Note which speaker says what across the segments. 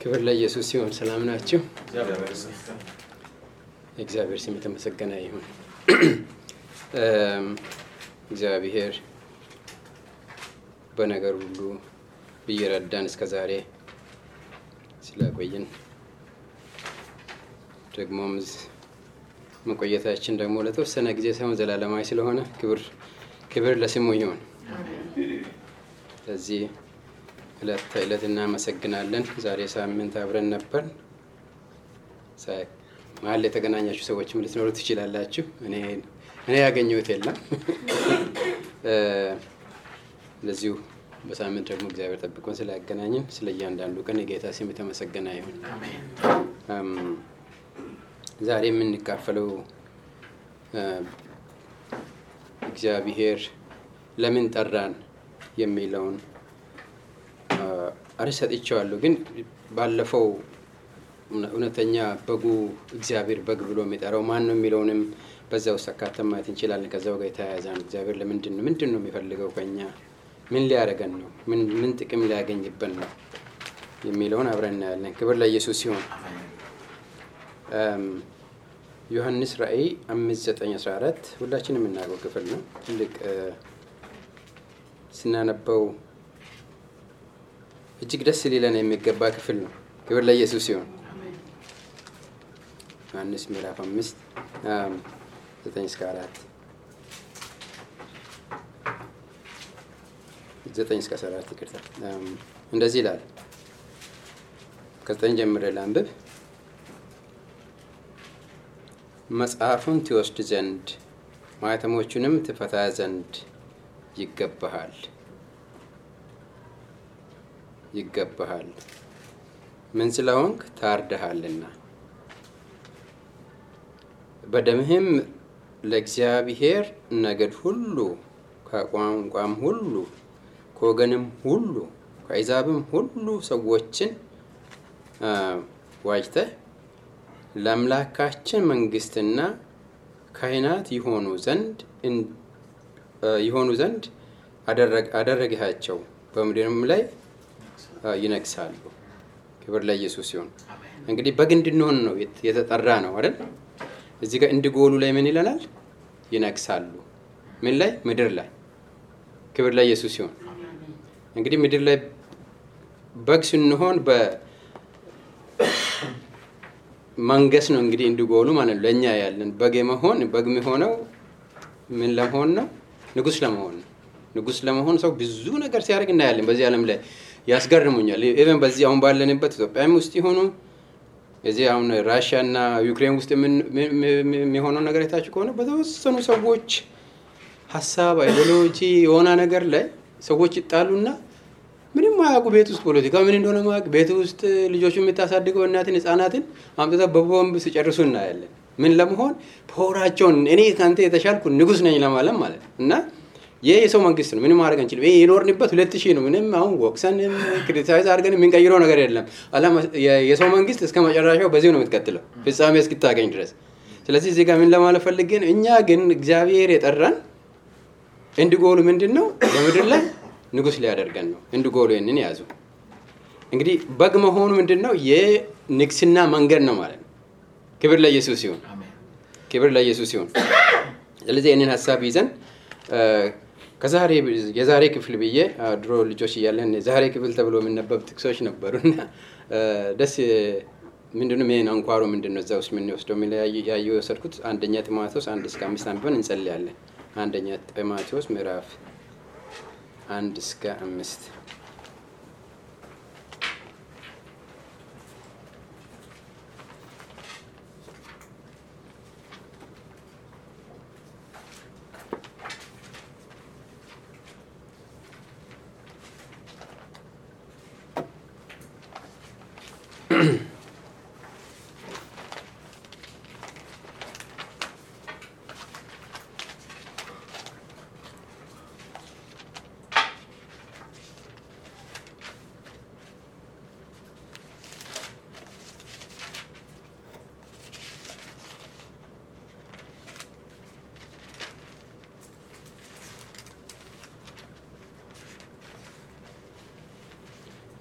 Speaker 1: ክብር ለኢየሱስ ይሁን። ሰላም ናችሁ? እግዚአብሔር ስም የተመሰገነ ይሁን። እግዚአብሔር በነገር ሁሉ እየረዳን እስከ ዛሬ ስለቆየን ደግሞም መቆየታችን ደግሞ ለተወሰነ ጊዜ ሳይሆን ዘላለማዊ ስለሆነ ክብር ለስሙ ይሁን። ስለዚህ ዕለት እናመሰግናለን። ዛሬ ሳምንት አብረን ነበር። መሀል የተገናኛችሁ ሰዎችም ልትኖሩ ትችላላችሁ። እኔ ያገኘሁት የለም። ለዚሁ በሳምንት ደግሞ እግዚአብሔር ጠብቆን ስላገናኘን ስለ እያንዳንዱ ቀን የጌታ ስም የተመሰገነ ይሁን። ዛሬ የምንካፈለው እግዚአብሔር ለምን ጠራን የሚለውን አርዕስት ሰጥቼዋለሁ። ግን ባለፈው እውነተኛ በጉ እግዚአብሔር በግ ብሎ የሚጠራው ማን ነው የሚለውንም በዛው አካተን ማየት እንችላለን። ከዛው ጋር የተያያዘ ነው። እግዚአብሔር ምንድን ነው የሚፈልገው ከኛ? ምን ሊያደርገን ነው? ምን ጥቅም ሊያገኝብን ነው የሚለውን አብረን እናያለን። ክብር ለኢየሱስ ይሁን። ዮሐንስ ራእይ 5:9-14 ሁላችንም የምናውቀው ክፍል ነው። ትልቅ ስናነበው እጅግ ደስ ሊለን የሚገባ ክፍል ነው። ክብር ለኢየሱስ ይሁን። ዮሐንስ ምዕራፍ 5:9-14 9-14 ይቅርታ። እንደዚህ ይላል። ከ9 ጀምሬ ላንብብ። መጽሐፉን ትወስድ ዘንድ ማኅተሞቹንም ትፈታ ዘንድ ይገባሃል። ምን ስለሆንክ? ታርደሃልና በደምህም ለእግዚአብሔር ነገድ ሁሉ ከቋንቋም ሁሉ ከወገንም ሁሉ ከአሕዛብም ሁሉ ሰዎችን ዋጅተህ ለአምላካችን መንግሥትና ካህናት ይሆኑ ዘንድ አደረግሃቸው፣ በምድርም ላይ ይነግሣሉ። ክብር ለኢየሱስ ይሁን። እንግዲህ በግ እንድንሆን ነው የተጠራ ነው አይደል? እዚህ ጋር እንዲጎሉ ላይ ምን ይለናል? ይነግሣሉ። ምን ላይ? ምድር ላይ። ክብር ለኢየሱስ ይሁን። እንግዲህ ምድር ላይ በግ ስንሆን መንገስ ነው እንግዲህ እንዲጎሉ ማለት ነው። ለኛ ያለን በግ የሚሆነው ምን ለመሆን ነው? ንጉስ ለመሆን ነው። ንጉስ ለመሆን ሰው ብዙ ነገር ሲያደርግ እናያለን በዚህ ዓለም ላይ። ያስገርሙኛል። ኢቨን በዚህ አሁን ባለንበት ኢትዮጵያም ውስጥ ይሆኑ እዚህ አሁን ራሽያ እና ዩክሬን ውስጥ የሚሆነው ነገር የታች ከሆነ በተወሰኑ ሰዎች ሀሳብ አይዲዮሎጂ የሆነ ነገር ላይ ሰዎች ይጣሉና ምንም ማያውቁ ቤት ውስጥ ፖለቲካ ምን እንደሆነ ማያውቁ ቤት ውስጥ ልጆቹ የምታሳድገው እናትን ህፃናትን አምጥተው በቦምብ ሲጨርሱ እናያለን። ምን ለመሆን? ፖራቸውን እኔ ካንተ የተሻልኩ ንጉስ ነኝ ለማለት ማለት እና ይሄ የሰው መንግስት ነው። ምንም ማድረግ አንችልም። ይሄ የኖርንበት 2000 ነው። ምንም አሁን ወቅሰን ክሪቲሳይዝ አድርገን የምንቀይረው ነገር የለም። የሰው መንግስት እስከ መጨረሻው በዚህ ነው የምትቀጥለው ፍጻሜ እስክታገኝ ድረስ። ስለዚህ እዚህ ጋር ምን ለማለት ፈልገን እኛ ግን እግዚአብሔር የጠራን እንዲጎሉ ምንድነው? በምድር ላይ ንጉስ ሊያደርገን ነው። እንዲጎሉ ይሄንን ያዙ። እንግዲህ በግ መሆኑ ምንድነው? የንግስና መንገድ ነው ማለት ነው። ክብር ለኢየሱስ ይሁን። ክብር ለኢየሱስ ይሁን። ስለዚህ ይሄንን ሐሳብ ይዘን የዛሬ ክፍል ብዬ ድሮ ልጆች እያለን ዛሬ ክፍል ተብሎ የሚነበብ ጥቅሶች ነበሩና ደስ ምንድነው ምን አንኳሩ ምንድነው እዛ ውስጥ ምን ይወስደው ያየው የወሰድኩት አንደኛ ጢሞቴዎስ 1-5 አንብበን እንጸልያለን። አንደኛ ጢሞቴዎስ ምዕራፍ 1-5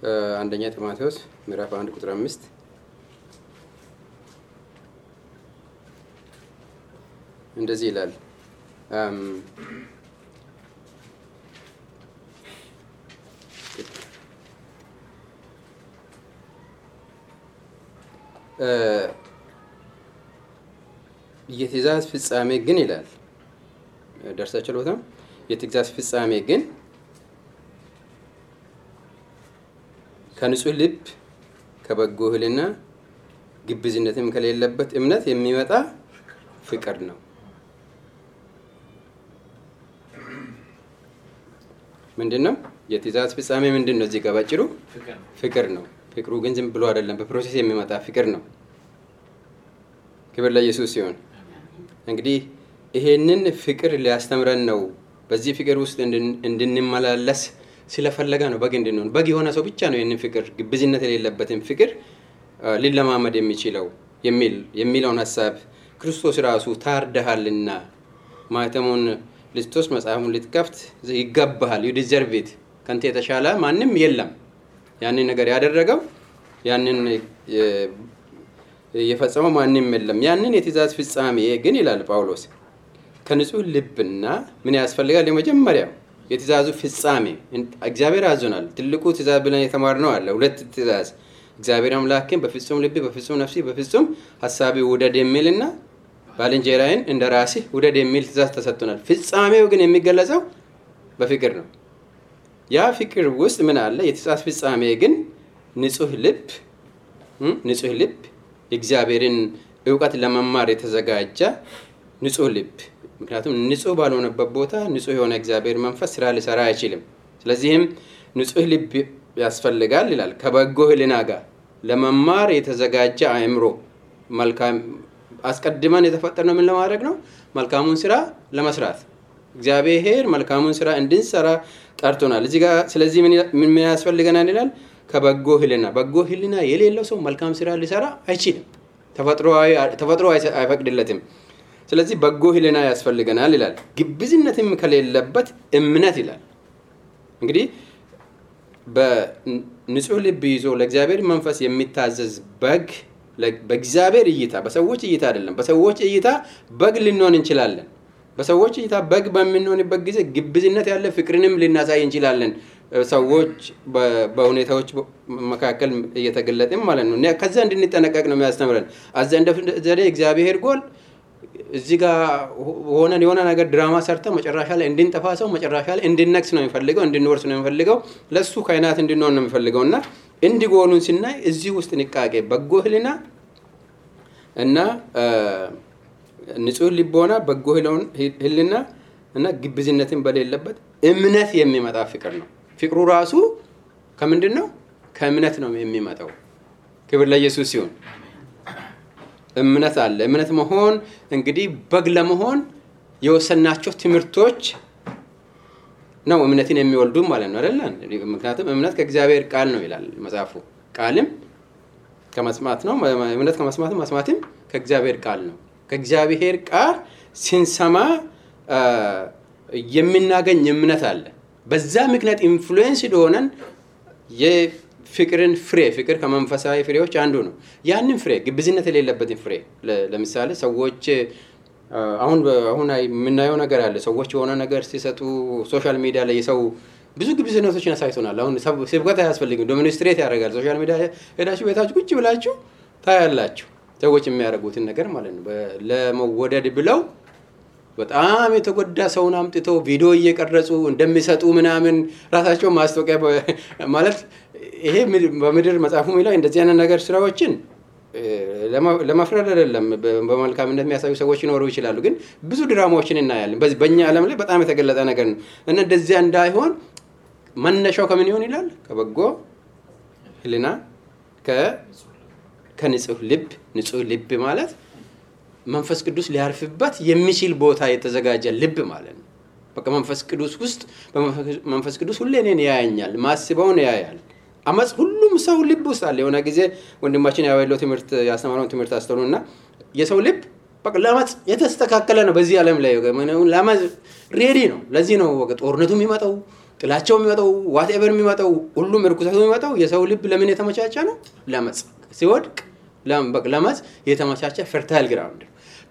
Speaker 1: አንደኛ ጢሞቴዎስ ምዕራፍ 1 ቁጥር 5 እንደዚህ ይላል። የትእዛዝ ፍጻሜ ግን ይላል ደርሳችሁ ለወጣም የትእዛዝ ፍጻሜ ግን ከንጹህ ልብ ከበጎ ሕሊና ግብዝነትም ከሌለበት እምነት የሚመጣ ፍቅር ነው። ምንድነው የትእዛዝ ፍጻሜ? ምንድነው? እዚህ ጋር ባጭሩ ፍቅር ነው። ፍቅሩ ግን ዝም ብሎ አይደለም፣ በፕሮሰስ የሚመጣ ፍቅር ነው። ክብር ለኢየሱስ ሲሆን እንግዲህ ይሄንን ፍቅር ሊያስተምረን ነው። በዚህ ፍቅር ውስጥ እንድንመላለስ ስለፈለገ ነው በግ እንድንሆን። በግ የሆነ ሰው ብቻ ነው ይሄንን ፍቅር ግብዝነት የሌለበትን ፍቅር ሊለማመድ የሚችለው የሚለውን ሐሳብ ክርስቶስ ራሱ ታርደሃልና ማተሙን ልትወስ መጽሐፉን ልትከፍት ይገባሃል፣ you deserve it፣ ካንተ የተሻለ ማንም የለም። ያንን ነገር ያደረገው ያንን የፈጸመው ማንም የለም። ያንን የትእዛዝ ፍጻሜ ግን ይላል ጳውሎስ ከንጹህ ልብና ምን ያስፈልጋል? የመጀመሪያው የትእዛዙ ፍጻሜ እግዚአብሔር አዞናል። ትልቁ ትእዛዝ ብለን የተማርነው አለ። ሁለት ትእዛዝ እግዚአብሔር አምላክን በፍጹም ልብ፣ በፍጹም ነፍስ፣ በፍጹም ሐሳብ ውደድ የሚልና ባልንጀራህን እንደ ራስህ ውደድ የሚል ትእዛዝ ተሰጥቶናል። ፍጻሜው ግን የሚገለጸው በፍቅር ነው። ያ ፍቅር ውስጥ ምን አለ? የትእዛዝ ፍጻሜ ግን ንጹህ ልብ የእግዚአብሔርን ዕውቀት ለመማር የተዘጋጀ ንጹህ ልብ። ምክንያቱም ንጹህ ባልሆነበት ቦታ ንጹህ የሆነ እግዚአብሔር መንፈስ ስራ ሊሰራ አይችልም። ስለዚህም ንጹህ ልብ ያስፈልጋል ይላል። ከበጎ ሕሊና ጋር ለመማር የተዘጋጀ አእምሮ። መልካም አስቀድመን የተፈጠርነው ምን ለማድረግ ነው? መልካሙን ስራ ለመስራት። እግዚአብሔር መልካሙን ስራ እንድንሰራ ጠርቶናል እዚህ ጋር። ስለዚህ ምን ያስፈልገናል ይላል? ከበጎ ሕሊና። በጎ ሕሊና የሌለው ሰው መልካም ስራ ሊሰራ አይችልም። ተፈጥሮ አይፈቅድለትም። ስለዚህ በጎ ሕሊና ያስፈልገናል ይላል። ግብዝነትም ከሌለበት እምነት ይላል። እንግዲህ በንጹህ ልብ ይዞ ለእግዚአብሔር መንፈስ የሚታዘዝ በግ በእግዚአብሔር እይታ፣ በሰዎች እይታ አይደለም። በሰዎች እይታ በግ ልንሆን እንችላለን። በሰዎች እይታ በግ በምንሆንበት ጊዜ ግብዝነት ያለ ፍቅርንም ልናሳይ እንችላለን። ሰዎች በሁኔታዎች መካከል እየተገለጠም ማለት ነው። ከዛ እንድንጠነቀቅ ነው የሚያስተምረን። አዘንደ ዘዴ እግዚአብሔር ጎል እዚህ ጋር ሆነን የሆነ ነገር ድራማ ሰርተ መጨረሻ ላይ እንድንጠፋ ሰው መጨረሻ ላይ እንድንነክስ ነው የሚፈልገው፣ እንድንወርስ ነው የሚፈልገው፣ ለሱ ካይናት እንድንሆን ነው የሚፈልገውና እንዲጎሉን ስናይ እዚህ ውስጥ ንቃቄ፣ በጎ ሕሊና እና ንጹህ ልቦና፣ በጎ ሕሊና እና ግብዝነትን በሌለበት እምነት የሚመጣ ፍቅር ነው። ፍቅሩ ራሱ ከምንድን ነው? ከእምነት ነው የሚመጣው። ክብር ለኢየሱስ ሲሆን እምነት አለ። እምነት መሆን እንግዲህ በግ ለመሆን የወሰናቸው ትምህርቶች ነው እምነትን የሚወልዱ ማለት ነው አይደል? ምክንያቱም እምነት ከእግዚአብሔር ቃል ነው ይላል መጽሐፉ። ቃልም ከመስማት ነው፣ እምነት ከመስማት፣ መስማትም ከእግዚአብሔር ቃል ነው። ከእግዚአብሔር ቃል ሲንሰማ የምናገኝ እምነት አለ። በዛ ምክንያት ኢንፍሉዌንስ ሆነን የፍቅርን ፍሬ፣ ፍቅር ከመንፈሳዊ ፍሬዎች አንዱ ነው። ያንን ፍሬ ግብዝነት የሌለበትን ፍሬ ለምሳሌ ሰዎች አሁን የምናየው ነገር አለ። ሰዎች የሆነ ነገር ሲሰጡ ሶሻል ሚዲያ ላይ የሰው ብዙ ግብዝነቶችን አሳይቶናል። አሁን ስብከት አያስፈልግም፣ ዶሚኒስትሬት ያደርጋል። ሶሻል ሚዲያ ሄዳችሁ ቤታችሁ ቁጭ ብላችሁ ታያላችሁ ሰዎች የሚያደርጉትን ነገር ማለት ነው። ለመወደድ ብለው በጣም የተጎዳ ሰውን አምጥተው ቪዲዮ እየቀረጹ እንደሚሰጡ ምናምን ራሳቸው ማስታወቂያ ማለት ይሄ በምድር መጽሐፉ ላይ እንደዚህ አይነት ነገር ስራዎችን ለማፍረድ አይደለም፣ በመልካምነት የሚያሳዩ ሰዎች ይኖሩ ይችላሉ። ግን ብዙ ድራማዎችን እናያለን። በእኛ ዓለም ላይ በጣም የተገለጠ ነገር ነው እና እንደዚያ እንዳይሆን መነሻው ከምን ይሆን ይላል? ከበጎ ሕሊና ከንጹህ ልብ። ንጹህ ልብ ማለት መንፈስ ቅዱስ ሊያርፍበት የሚችል ቦታ የተዘጋጀ ልብ ማለት ነው። በቃ መንፈስ ቅዱስ ውስጥ መንፈስ ቅዱስ ሁሌ እኔን ያያኛል፣ ማስበውን ያያል። አመጽ ሁሉም ሰው ልብ ውስጥ አለ። የሆነ ጊዜ ወንድማችን ያወለው ትምህርት ያስተማረው ትምህርት አስተውሉና የሰው ልብ በቃ ለማጽ የተስተካከለ ነው። በዚህ ዓለም ላይ ለማጽ ሬዲ ነው። ለዚህ ነው በቃ ጦርነቱ የሚመጣው፣ ጥላቻው የሚመጣው ዋትኤቨር የሚመጣው ሁሉም ርኩሰቱ የሚመጣው የሰው ልብ ለምን የተመቻቸ ነው? ለመጽ ሲወድቅ ለመጽ የተመቻቸ ፈርታይል ግራውንድ።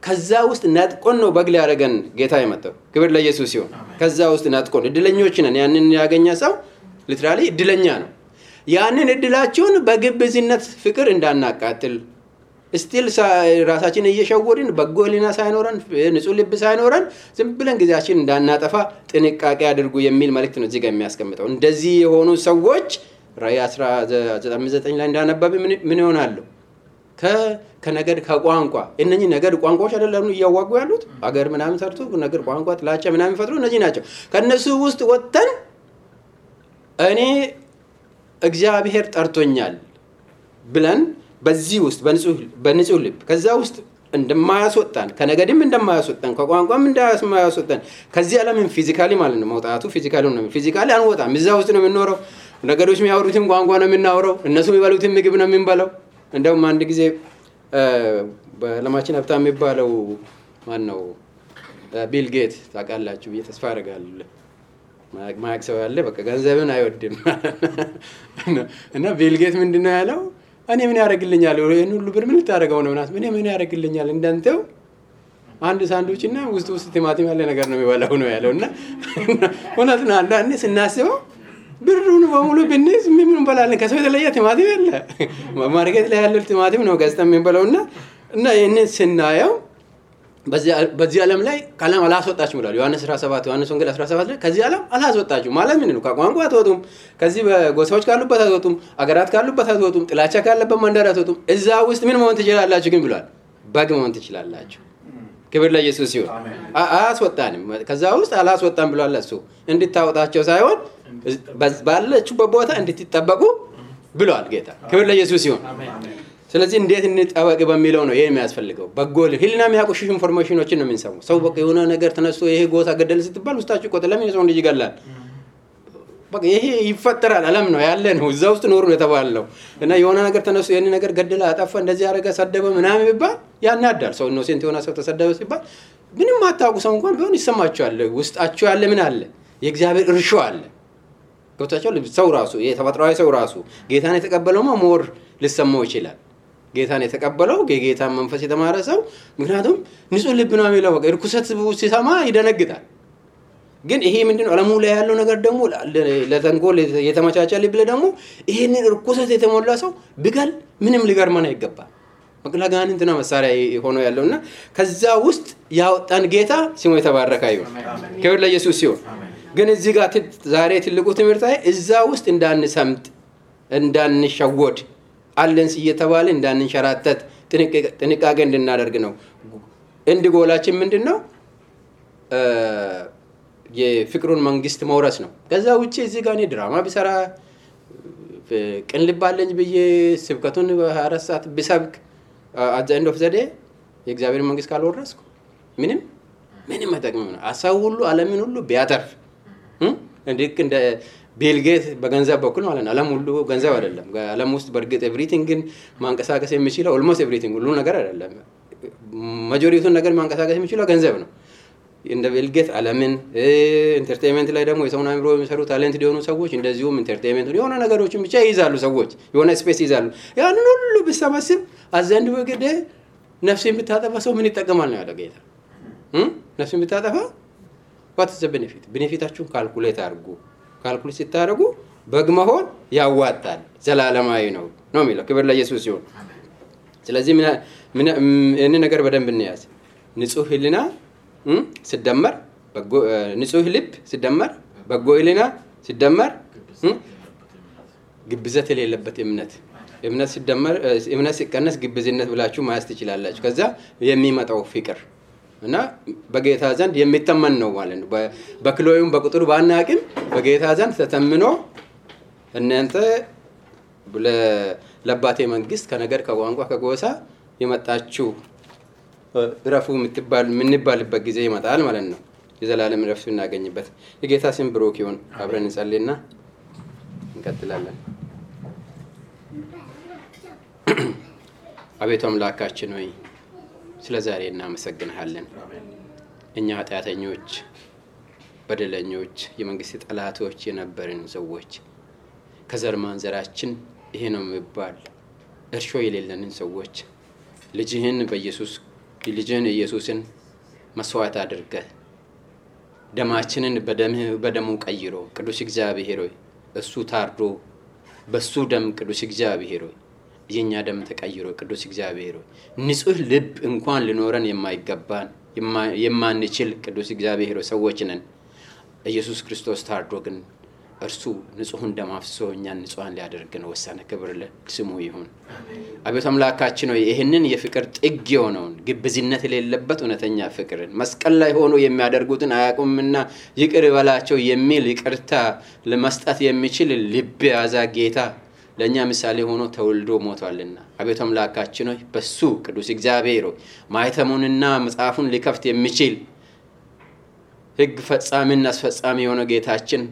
Speaker 1: ከዛ ውስጥ ነጥቆን ነው በግ ሊያደርገን ጌታ የመጣው። ክብር ለኢየሱስ ይሁን። ከዛ ውስጥ ነጥቆን እድለኞች ነን። ያንን ያገኘ ሰው ሊትራሊ እድለኛ ነው። ያንን እድላችሁን በግብዝነት ፍቅር እንዳናቃጥል ስቲል ራሳችን እየሸወድን በጎ ሕሊና ሳይኖረን ንጹህ ልብ ሳይኖረን ዝም ብለን ጊዜያችን እንዳናጠፋ ጥንቃቄ አድርጉ የሚል መልእክት ነው እዚህ ጋር የሚያስቀምጠው። እንደዚህ የሆኑ ሰዎች ራዕይ 19 ላይ እንዳነበብ ምን ይሆናሉ? ከነገድ ከቋንቋ እነኚህ ነገድ ቋንቋዎች አይደለም እያዋጉ ያሉት አገር ምናምን ሰርቶ ነገድ ቋንቋ ጥላቻ ምናምን ፈጥሩ እነዚህ ናቸው። ከነሱ ውስጥ ወጥተን እኔ እግዚአብሔር ጠርቶኛል ብለን በዚህ ውስጥ በንጹህ ልብ ከዛ ውስጥ እንደማያስወጣን ከነገድም እንደማያስወጣን ከቋንቋም እንደማያስወጣን ከዚህ ዓለምን ፊዚካሊ ማለት ነው መውጣቱ ፊዚካሊ ነው። ፊዚካሊ አንወጣም። እዛ ውስጥ ነው የምንኖረው። ነገዶች የሚያወሩትን ቋንቋ ነው የምናወራው። እነሱ የሚበሉትን ምግብ ነው የምንበላው። እንደውም አንድ ጊዜ በዓለማችን ሀብታም የሚባለው ማን ነው? ቢል ጌት ታውቃላችሁ ብዬ ተስፋ አደርጋለሁ። ማያውቅ ሰው ያለ በቃ ገንዘብን አይወድም። እና ቢል ጌት ምንድነው ያለው? እኔ ምን ያደርግልኛል? ይሄን ሁሉ ብር ምን ልታደርገው ነው? እኔ ምን ያደርግልኛል? እንዳንተው አንድ ሳንድዊች እና ውስጥ ቲማቲም ያለ ነገር ነው የሚበላው ነው ያለው። እና እውነት ነው። አንዳንዴ ስናስበው ብሩን በሙሉ ብንይዝ ምን እንበላለን? ከሰው የተለየ ቲማቲም የለ። ማርኬት ላይ ያለው ቲማቲም ነው ገዝተን የምንበላው። እና ይሄንን ስናየው በዚህ ዓለም ላይ ካለም አላስወጣችም ይላል ዮሐንስ 17 ዮሐንስ ወንጌል 17 ላይ ከዚህ ዓለም አላስወጣችም ማለት ምን ነው? ከቋንቋ አትወጡም፣ ከዚህ በጎሳዎች ካሉበት አትወጡም፣ አገራት ካሉበት አትወጡም፣ ጥላቻ ካለበት መንደር አትወጡም። እዛ ውስጥ ምን መሆን ትችላላችሁ ግን ብሏል? በግ መሆን ትችላላችሁ። ክብር ለኢየሱስ ይሁን። አያስወጣንም፣ ከዛ ውስጥ አላስወጣም ብሏል። እሱ እንድታወጣቸው ሳይሆን ባለችበት ቦታ እንድትጠበቁ ብሏል ጌታ። ክብር ለኢየሱስ ይሁን። ስለዚህ እንዴት እንጠበቅ በሚለው ነው ይሄ የሚያስፈልገው። በጎ ሕሊና የሚያቆሽሽ ኢንፎርሜሽኖችን ነው የምንሰማው። ሰው በቃ የሆነ ነገር ተነስቶ ይሄ ጎሳ ገደል ስትባል ውስጣችሁ ቆጥ ለምን የሰው ልጅ ይገላል? በቃ ይሄ ይፈጠራል። ዓለም ነው ያለ ነው። እዛ ውስጥ ኖሩ ነው የተባለው። እና የሆነ ነገር ተነስቶ ይሄን ነገር ገደለ፣ አጠፋ፣ እንደዚህ ያደረገ፣ ሰደበ ምናምን ቢባል ያናዳል። ሰው ኢኖሴንት የሆነ ሰው ተሰደበ ሲባል ምንም አታውቁ ሰው እንኳን ቢሆን ይሰማችኋል። ውስጣችሁ ያለ ምን አለ? የእግዚአብሔር እርሾ አለ። ገብታችኋል? ሰው ራሱ የተፈጥሯዊ ሰው ራሱ ጌታን የተቀበለው ሞር ሊሰማው ይችላል። ጌታን የተቀበለው የጌታን መንፈስ የተማረ ሰው ምክንያቱም ንጹህ ልብ ነው የሚለው። በቃ ርኩሰት ሲሰማ ይደነግጣል። ግን ይሄ ምንድነው? ዓለሙ ላይ ያለው ነገር ደግሞ ለተንኮል የተመቻቸ ልብ ደግሞ ይሄንን ርኩሰት የተሞላ ሰው ቢገል ምንም ሊገርመን አይገባም። መቅላጋንንትና መሳሪያ ሆኖ ያለውና ከዛ ውስጥ ያወጣን ጌታ ስሙ የተባረከ ይሁን። ክብር ለኢየሱስ ይሁን። ግን እዚህ ጋር ዛሬ ትልቁ ትምህርት እዛ ውስጥ እንዳንሰምጥ እንዳንሸወድ አለንስ እየተባለ እንዳንንሸራተት ጥንቃቄ እንድናደርግ ነው። እንድጎላችን ምንድነው? የፍቅሩን መንግስት መውረስ ነው። ከዛ ውጪ እዚህ ጋር እኔ ድራማ ቢሰራ ቅን ልብ አለኝ ብዬ ስብከቱን በ24 ሰዓት ቢሰብክ at the end of the day የእግዚአብሔር መንግስት ካልወረስኩ ምንም አይጠቅምም ነው። አሳው ሁሉ ዓለምን ሁሉ ቢያተርፍ እንደ ቢል ጌት በገንዘብ በኩል ማለት ነው። ዓለም ሁሉ ገንዘብ አይደለም። ዓለም ውስጥ በርግጥ ኤቭሪቲንግን ማንቀሳቀስ የሚችለው ኦልሞስት ኤቭሪቲንግ ሁሉ ነገር አይደለም። ማጆሪቲውን ነገር ማንቀሳቀስ የሚችለው ገንዘብ ነው። እንደ ቢል ጌት ዓለምን ኢንተርቴይንመንት ላይ ደግሞ የሰውን አእምሮ የሚሰሩ ታለንት የሆኑ ሰዎች እንደዚሁም ኢንተርቴይንመንት የሆነ ነገሮችን ብቻ ይይዛሉ። ሰዎች የሆነ ስፔስ ይይዛሉ። ያንን ሁሉ ቢሰበስብ አዘንድ ወገደ ነፍስን ብታጠፋ ሰው ምን ይጠቀማል ነው ያለው ጌታ። ነፍስን ብታጠፋ what is the benefit? ቤኔፊታችሁን ካልኩሌት አድርጉ። ካልኩሌት ሲታረጉ በግ መሆን ያዋጣል፣ ዘላለማዊ ነው የሚለው። ክብር ለኢየሱስ ይሁን። ስለዚህ ምን ነገር በደንብ እንያዝ። ንጹህ ሕሊና ሲደመር በጎ ንጹህ ልብ ሲደመር በጎ ሕሊና ሲደመር ግብዘት የሌለበት እምነት ሲደመር እምነት ሲቀነስ ግብዝነት ብላችሁ ማያስ ትችላላችሁ። ከዛ የሚመጣው ፍቅር እና በጌታ ዘንድ የሚተመን ነው ማለት ነው። በክሎዩም በቁጥሩ ባናቅም በጌታ ዘንድ ተተምኖ እናንተ ለአባቴ መንግስት ከነገር ከቋንቋ ከጎሳ የመጣችሁ ረፉ የምንባልበት ጊዜ ይመጣል ማለት ነው። የዘላለም ረፍት እናገኝበት። የጌታ ስም ብሩክ ይሁን። አብረን እንጸልይና እንቀጥላለን። አቤቱ አምላካችን ሆይ ስለ ዛሬ እናመሰግንሃለን። እኛ ኃጢአተኞች በደለኞች የመንግስት ጠላቶች የነበርን ሰዎች ከዘር ማንዘራችን ይሄ ነው የሚባል እርሾ የሌለንን ሰዎች ልጅህን ኢየሱስን መስዋዕት አድርገህ ደማችንን በደሙ ቀይሮ ቅዱስ እግዚአብሔር ሆይ እሱ ታርዶ በሱ ደም ቅዱስ እግዚአብሔር ሆይ የኛ ደም ተቀይሮ ቅዱስ እግዚአብሔር ሆይ ንጹህ ልብ እንኳን ሊኖረን የማይገባን የማንችል ቅዱስ እግዚአብሔር ሆይ ሰዎች ነን። ኢየሱስ ክርስቶስ ታርዶ ግን እርሱ ንጹህን ደም አፍስሶ እኛን ንጹሃን ሊያደርገን ወሰነ። ክብር ለስሙ ይሁን። አቤቱ አምላካችን ሆይ ይህንን የፍቅር ጥግ የሆነውን ግብዝነት የሌለበት እውነተኛ ፍቅርን መስቀል ላይ ሆኖ የሚያደርጉትን አያውቁምና ይቅር በላቸው የሚል ይቅርታ ለመስጠት የሚችል ልብ ያዛ ጌታ ለኛ ምሳሌ ሆኖ ተወልዶ ሞቷልና አቤቱ አምላካችን ሆይ በሱ ቅዱስ እግዚአብሔር ሆይ ማይተሙንና መጽሐፉን ሊከፍት የሚችል ሕግ ፈጻሚና አስፈጻሚ የሆነ ጌታችን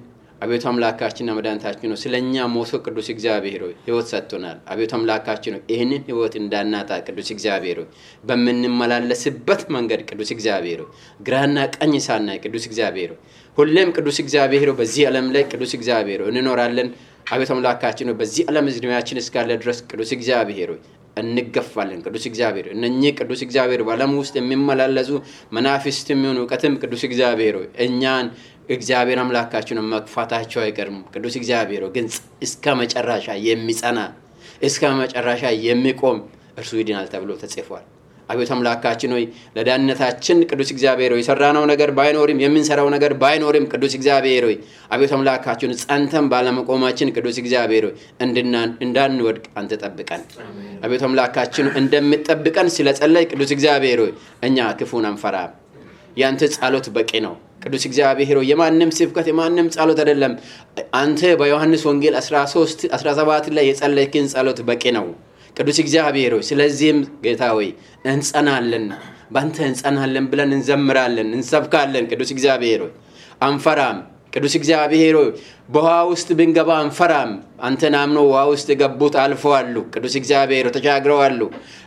Speaker 1: አቤቱ አምላካችንና መድኃኒታችን ሆይ ስለኛ ሞቶ ቅዱስ እግዚአብሔር ሆይ ሕይወት ሰጥቶናል። አቤቱ አምላካችን ሆይ ይህንን ሕይወት እንዳናጣ ቅዱስ እግዚአብሔር ሆይ በመንመላለስበት መንገድ ቅዱስ እግዚአብሔር ሆይ ግራና ቀኝ ሳናይ ቅዱስ እግዚአብሔር ሆይ ሁሌም ቅዱስ እግዚአብሔር ሆይ በዚህ ዓለም ላይ ቅዱስ እግዚአብሔር ሆይ እንኖራለን። አቤቱ አምላካችን ሆይ በዚህ ዓለም ዕድሜያችን እስካለ ድረስ ቅዱስ እግዚአብሔር ሆይ እንገፋለን። ቅዱስ እግዚአብሔር እነኚህ ቅዱስ እግዚአብሔር በዓለም ውስጥ የሚመላለሱ መናፍስትም ይሁን ዕውቀትም ቅዱስ እግዚአብሔር ሆይ እኛን እግዚአብሔር አምላካችን መግፋታቸው አይቀርም። ቅዱስ እግዚአብሔር ግን እስከ መጨረሻ የሚጸና እስከ መጨረሻ የሚቆም እርሱ ይድናል ተብሎ ተጽፏል። አቤቱ አምላካችን ሆይ ለዳንነታችን ቅዱስ እግዚአብሔር ሆይ ሰራነው ነገር ባይኖርም የምንሰራው ነገር ባይኖርም ቅዱስ እግዚአብሔር ሆይ አቤቱ አምላካችን ጸንተን ባለመቆማችን ቅዱስ እግዚአብሔር ሆይ እንዳንወድቅ አንተ ጠብቀን። አቤቱ አምላካችን እንደምትጠብቀን ስለጸለይ ቅዱስ እግዚአብሔር ሆይ እኛ ክፉን አንፈራም። ያንተ ጸሎት በቂ ነው። ቅዱስ እግዚአብሔር ሆይ የማንም ስብከት የማንም ጸሎት አይደለም። አንተ በዮሐንስ ወንጌል 13:17 ላይ የጸለይክን ጸሎት በቂ ነው ቅዱስ እግዚአብሔር ሆይ። ስለዚህም ጌታ ሆይ እንጸናለን፣ ባንተ እንጸናለን ብለን እንዘምራለን፣ እንሰብካለን። ቅዱስ እግዚአብሔር ሆይ አንፈራም። ቅዱስ እግዚአብሔር ሆይ በውሃ ውስጥ ብንገባ አንፈራም። አንተን አምነው ውሃ ውስጥ የገቡት አልፈዋል። ቅዱስ እግዚአብሔር ሆይ ተሻግረዋል።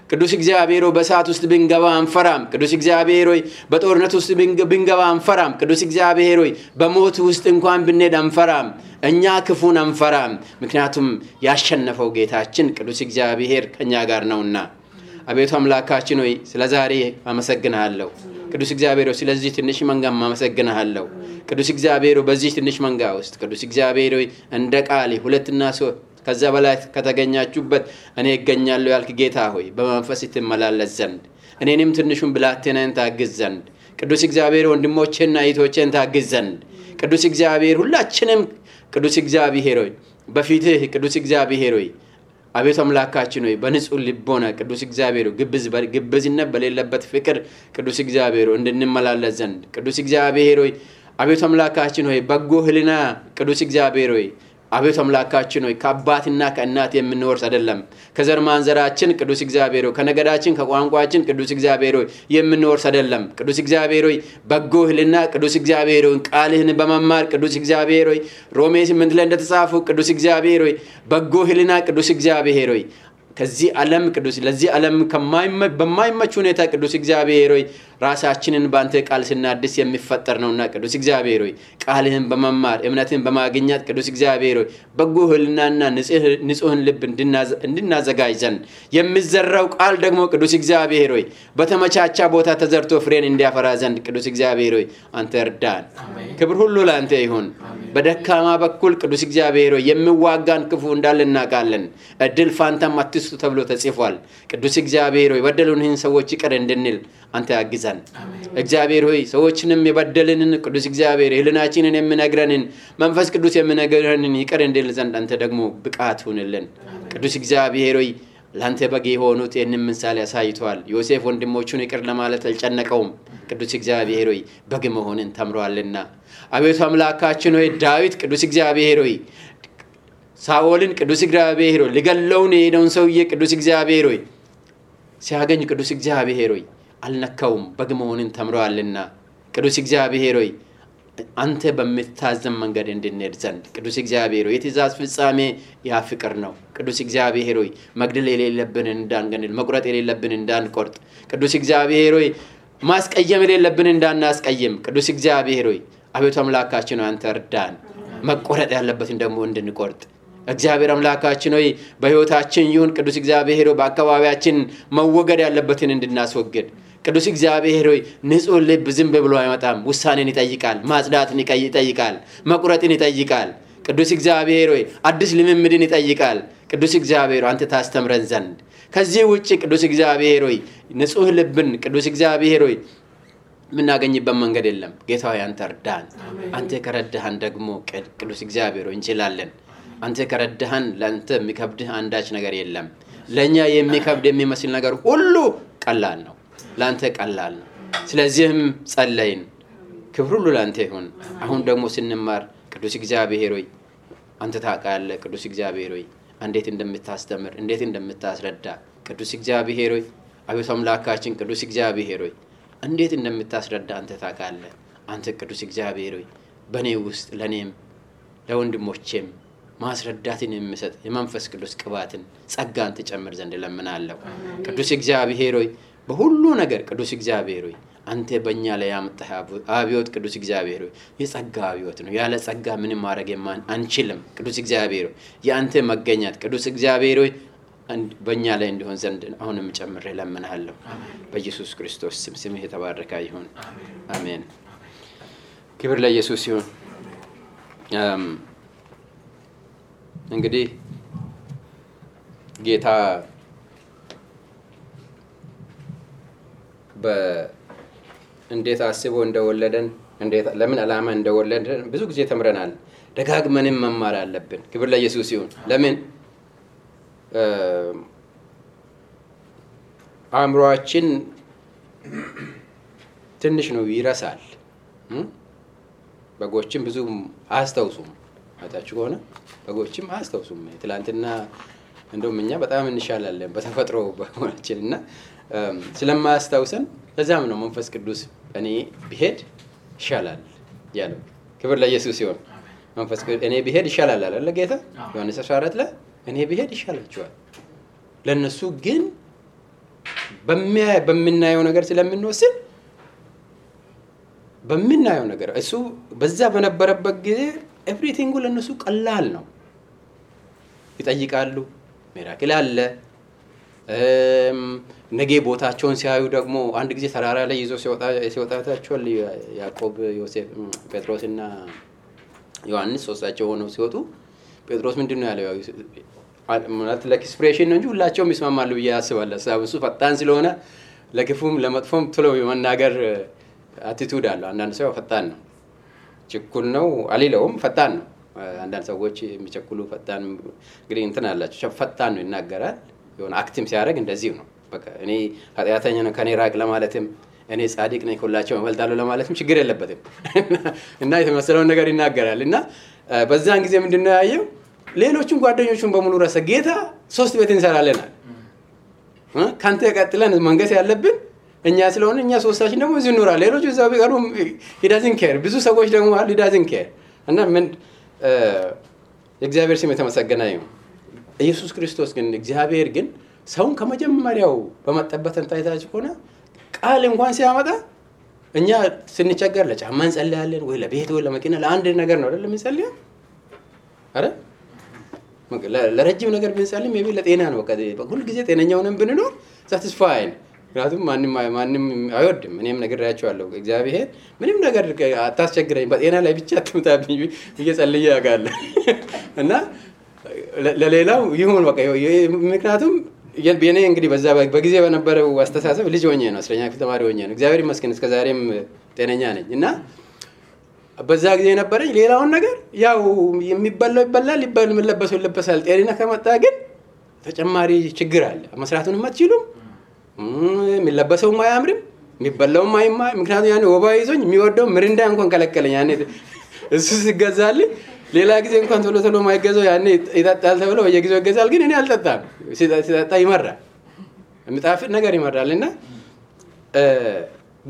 Speaker 1: ቅዱስ እግዚአብሔር ሆይ በእሳት ውስጥ ብንገባ አንፈራም። ቅዱስ እግዚአብሔር ሆይ በጦርነት ውስጥ ብንገባ አንፈራም። ቅዱስ እግዚአብሔር ሆይ በሞት ውስጥ እንኳን ብንሄድ አንፈራም። እኛ ክፉን አንፈራም፣ ምክንያቱም ያሸነፈው ጌታችን ቅዱስ እግዚአብሔር ከኛ ጋር ነውና። አቤቱ አምላካችን ሆይ ስለዛሬ አመሰግናለሁ። ቅዱስ እግዚአብሔር ሆይ ስለዚህ ትንሽ መንጋም አመሰግናለሁ። ቅዱስ እግዚአብሔር ሆይ በዚህ ትንሽ መንጋ ውስጥ ቅዱስ እግዚአብሔር ሆይ እንደ ቃል ሁለትና ሶስት ከዛ በላይ ከተገኛችሁበት እኔ እገኛለሁ ያልክ ጌታ ሆይ በመንፈስ ትመላለስ ዘንድ እኔንም ትንሹን ብላቴናን ታግዝ ዘንድ ቅዱስ እግዚአብሔር ወንድሞቼና እህቶቼን ታግዝ ዘንድ ቅዱስ እግዚአብሔር ሁላችንም ቅዱስ እግዚአብሔር ሆይ በፊትህ ቅዱስ እግዚአብሔር ሆይ አቤቱ አምላካችን ሆይ በንጹህ ልቦና ቅዱስ እግዚአብሔር ሆይ ግብዝነት በሌለበት ፍቅር ቅዱስ እግዚአብሔር ሆይ እንድንመላለስ ዘንድ ቅዱስ እግዚአብሔር ሆይ አቤቱ አምላካችን ሆይ በጎ ህሊና ቅዱስ እግዚአብሔር ሆይ አቤቱ አምላካችን ሆይ ከአባትና ከእናት የምንወርስ አይደለም። ከዘር ማንዘራችን ቅዱስ እግዚአብሔር ሆይ ከነገዳችን ከቋንቋችን ቅዱስ እግዚአብሔር ሆይ የምንወርስ አይደለም። ቅዱስ እግዚአብሔር ሆይ በጎ ህሊና ቅዱስ እግዚአብሔር ሆይ ቃልህን በመማር ቅዱስ እግዚአብሔር ሆይ ሮሜ 8 ላይ እንደተጻፈው ቅዱስ እግዚአብሔር ሆይ በጎ ህሊና ቅዱስ እግዚአብሔር ሆይ ከዚህ ዓለም ቅዱስ ለዚህ ዓለም በማይመች ሁኔታ ቅዱስ እግዚአብሔር ሆይ ራሳችንን ባንተ ቃል ስናድስ የሚፈጠር ነውና ቅዱስ እግዚአብሔር ሆይ ቃልህን በመማር እምነትን በማግኘት ቅዱስ እግዚአብሔር ሆይ በጎ ህሊናና ንጹህን ልብ እንድናዘጋጅ ዘንድ የሚዘራው ቃል ደግሞ ቅዱስ እግዚአብሔር ሆይ በተመቻቻ ቦታ ተዘርቶ ፍሬን እንዲያፈራ ዘንድ ቅዱስ እግዚአብሔር ሆይ አንተ እርዳን። ክብር ሁሉ ላንተ ይሁን። በደካማ በኩል ቅዱስ እግዚአብሔር ሆይ የሚዋጋን ክፉ እንዳልናቃለን እድል ፋንታም አትስጡ ተብሎ ተጽፏል። ቅዱስ እግዚአብሔር ሆይ በደሉንን ሰዎች ይቅር እንድንል አንተ ያግዛን። እግዚአብሔር ሆይ ሰዎችንም የበደልንን ቅዱስ እግዚአብሔር ህሊናችንን የሚነግረንን መንፈስ ቅዱስ የሚነግረንን ይቅር እንድንል ዘንድ አንተ ደግሞ ብቃት ሁንልን። ቅዱስ እግዚአብሔር ሆይ ላንተ በግ የሆኑት ይህንን ምሳሌ ያሳይቷል። ዮሴፍ ወንድሞቹን ይቅር ለማለት አልጨነቀውም። ቅዱስ እግዚአብሔር ሆይ በግ መሆንን ተምሯልና አቤቱ አምላካችን ሆይ ዳዊት ቅዱስ እግዚአብሔር ሆይ ሳኦልን ቅዱስ እግዚአብሔር ሆይ ሊገለውን የሄደውን ሰውዬ ቅዱስ እግዚአብሔር ሆይ ሲያገኝ ቅዱስ እግዚአብሔር ሆይ አልነካውም፣ በግ መሆንን ተምሯልና ቅዱስ እግዚአብሔር ሆይ አንተ በምታዘን መንገድ እንድንሄድ ዘንድ ቅዱስ እግዚአብሔር ሆይ የትእዛዝ ፍጻሜ ያ ፍቅር ነው። ቅዱስ እግዚአብሔር ሆይ መግደል የሌለብን እንዳንገድል፣ መቁረጥ የሌለብን እንዳንቆርጥ፣ ቅዱስ እግዚአብሔር ሆይ ማስቀየም የሌለብን እንዳናስቀየም ቅዱስ እግዚአብሔር ሆይ አቤቱ አምላካችን አንተ እርዳን መቆረጥ ያለበትን ደግሞ እንድንቆርጥ እግዚአብሔር አምላካችን ሆይ በህይወታችን ይሁን ቅዱስ እግዚአብሔር ሆይ በአካባቢያችን መወገድ ያለበትን እንድናስወግድ ቅዱስ እግዚአብሔር ሆይ ንጹህ ልብ ዝም ብሎ አይመጣም ውሳኔን ይጠይቃል ማጽዳትን ይጠይቃል መቁረጥን ይጠይቃል ቅዱስ እግዚአብሔር ሆይ አዲስ ልምምድን ይጠይቃል ቅዱስ እግዚአብሔር አንተ ታስተምረን ዘንድ ከዚህ ውጪ ቅዱስ እግዚአብሔር ሆይ ንጹህ ልብን ቅዱስ እግዚአብሔር ሆይ ምናገኝበት መንገድ የለም ጌታ ሆይ አንተ እርዳን አንተ ከረዳህን ደግሞ ቅዱስ እግዚአብሔር ሆይ እንችላለን አንተ ከረዳህን ለአንተ የሚከብድህ አንዳች ነገር የለም ለኛ የሚከብድ የሚመስል ነገር ሁሉ ቀላል ነው ለአንተ ቀላል ነው ስለዚህም ጸለይን ክብር ሁሉ ለአንተ ይሁን አሁን ደግሞ ስንማር ቅዱስ እግዚአብሔር ሆይ አንተ ታውቃለህ ቅዱስ እግዚአብሔር ሆይ እንዴት እንደምታስተምር እንዴት እንደምታስረዳ ቅዱስ እግዚአብሔር ሆይ አቤቱ አምላካችን ቅዱስ እግዚአብሔር ሆይ እንዴት እንደምታስረዳ አንተ ታውቃለህ አንተ ቅዱስ እግዚአብሔር ሆይ በኔ ውስጥ ለኔም ለወንድሞቼም ማስረዳትን የሚሰጥ የመንፈስ ቅዱስ ቅባትን ጸጋን ተጨምር ዘንድ ለምናለሁ ቅዱስ እግዚአብሔር ሆይ በሁሉ ነገር ቅዱስ እግዚአብሔር ሆይ አንተ በእኛ ላይ ያመጣህ አብዮት ቅዱስ እግዚአብሔር ሆይ የጸጋ አብዮት ነው ያለ ጸጋ ምንም ማድረግ አንችልም ቅዱስ እግዚአብሔር ሆይ ያንተ መገኘት ቅዱስ እግዚአብሔር ሆይ በእኛ ላይ እንዲሆን ዘንድ አሁንም ጨምሬ ለምናለሁ በኢየሱስ ክርስቶስ ስም ስምህ የተባረከ ይሁን አሜን ክብር ለኢየሱስ ይሁን እንግዲህ ጌታ እንዴት አስቦ እንደወለደን እንዴት ለምን ዓላማ እንደወለደን ብዙ ጊዜ ተምረናል ደጋግመንም መማር አለብን ክብር ለኢየሱስ ይሁን ለምን አእምሮአችን ትንሽ ነው ይረሳል በጎችም ብዙ አያስታውሱም አታችሁ ከሆነ በጎችም አያስታውሱም ትላንትና እንደውም እኛ በጣም እንሻላለን በተፈጥሮ በሆናችንና ስለማያስታውሰን ለዛም ነው መንፈስ ቅዱስ እኔ ብሄድ ይሻላል ያለው ክብር ለኢየሱስ ይሁን መንፈስ ቅዱስ እኔ ብሄድ ይሻላል አለ ጌታ ዮሐንስ 14 ላይ እኔ ብሄድ ይሻላችኋል ለነሱ ግን በሚናየው ነገር ስለምንወስን በሚናየው ነገር እሱ በዛ በነበረበት ጊዜ ኤቭሪቲንግ ለነሱ ቀላል ነው ይጠይቃሉ ሚራክል አለ ነገ ቦታቸውን ሲያዩ ደግሞ አንድ ጊዜ ተራራ ላይ ይዞ ሲወጣታቸው ያዕቆብ ዮሴፍ ጴጥሮስና ዮሐንስ ሶስታቸው ሆነው ሲወጡ ጴጥሮስ ምንድነው ያለው ማለት ለኤክስፕሬሽን ነው እንጂ ሁላቸውም ይስማማሉ ብዬ አስባለሁ እሱ ፈጣን ስለሆነ ለክፉም ለመጥፎም ቶሎ የመናገር አቲቲዩድ አለው አንዳንድ ሰው ፈጣን ነው ችኩል ነው አሊለውም ፈጣን ነው አንዳንድ ሰዎች የሚቸኩሉ ፈጣን እንግዲህ እንትን አላቸው ፈጣን ነው ይናገራል የሆነ አክቲቭ ሲያደርግ እንደዚህ ነው በቃ እኔ ኃጢአተኛ ነው ከኔ ራቅ ለማለትም እኔ ጻድቅ ነኝ ሁላቸው እበልጣለሁ ለማለትም ችግር የለበትም እና የተመሰለውን ነገር ይናገራል እና በዛን ጊዜ ምንድነው ያየው ሌሎቹን ጓደኞቹን በሙሉ ረሰ ጌታ 3 ቤት እንሰራለናል ካንተ ቀጥለን መንገስ ያለብን እኛ ስለሆነ እኛ ሶስታችን ደግሞ እዚህ ኑራ ሌሎቹ እዛው ቢቀሩ he doesn't care ብዙ ሰዎች ደግሞ አሉ he doesn't care እና ምን እግዚአብሔር ስም የተመሰገነ ይሁን ኢየሱስ ክርስቶስ ግን እግዚአብሔር ግን ሰውን ከመጀመሪያው በመጠበቅ እንታይታች ሆነ ቃል እንኳን ሲያመጣ እኛ ስንቸገር ለጫማ እንጸልያለን ወይ ለቤት ወይ ለመኪና ለአንድ ነገር ነው አይደል የምንጸልየው አይደል ለረጅም ነገር ብንጸልይ ሜቢ ለጤና ነው በቃ ሁሉ ጊዜ ጤነኛ ሆነን ብንኖር satisfied ምክንያቱም ማንንም አይወድም እኔም ነግሬያቸዋለሁ እግዚአብሔር ምንም ነገር አታስቸግረኝ በጤና ላይ ብቻ አትምጣብኝ እየጸልየ ያጋለ እና ለሌላው ይሁን በቃ ምክንያቱም የኔ እንግዲህ በዛ በጊዜ በነበረው አስተሳሰብ ልጅ ሆኜ ነው 10ኛ ክፍል ተማሪ ሆኜ ነው እግዚአብሔር ይመስገን እስከ ዛሬም ጤነኛ ነኝ እና በዛ ጊዜ ነበረኝ ሌላውን ነገር ያው የሚበላው ይበላል የሚለበሰው ይለበሳል ጤና ከመጣ ግን ተጨማሪ ችግር አለ መስራቱንም አትችሉም የሚለበሰው ማያምርም የሚበላው ማይማ ምክንያቱም ያኔ ወባ ይዞኝ የሚወደው ምሪንዳ እንኳን ከለከለኝ ያኔ እሱ ሲገዛልኝ ሌላ ጊዜ እንኳን ቶሎ ማይገዛው ያኔ ይጣጣል ተብሎ በየጊዜው ይገዛል ግን እኔ አልጠጣም ሲጣጣ ይመራል የሚጣፍጥ ነገር ይመራልና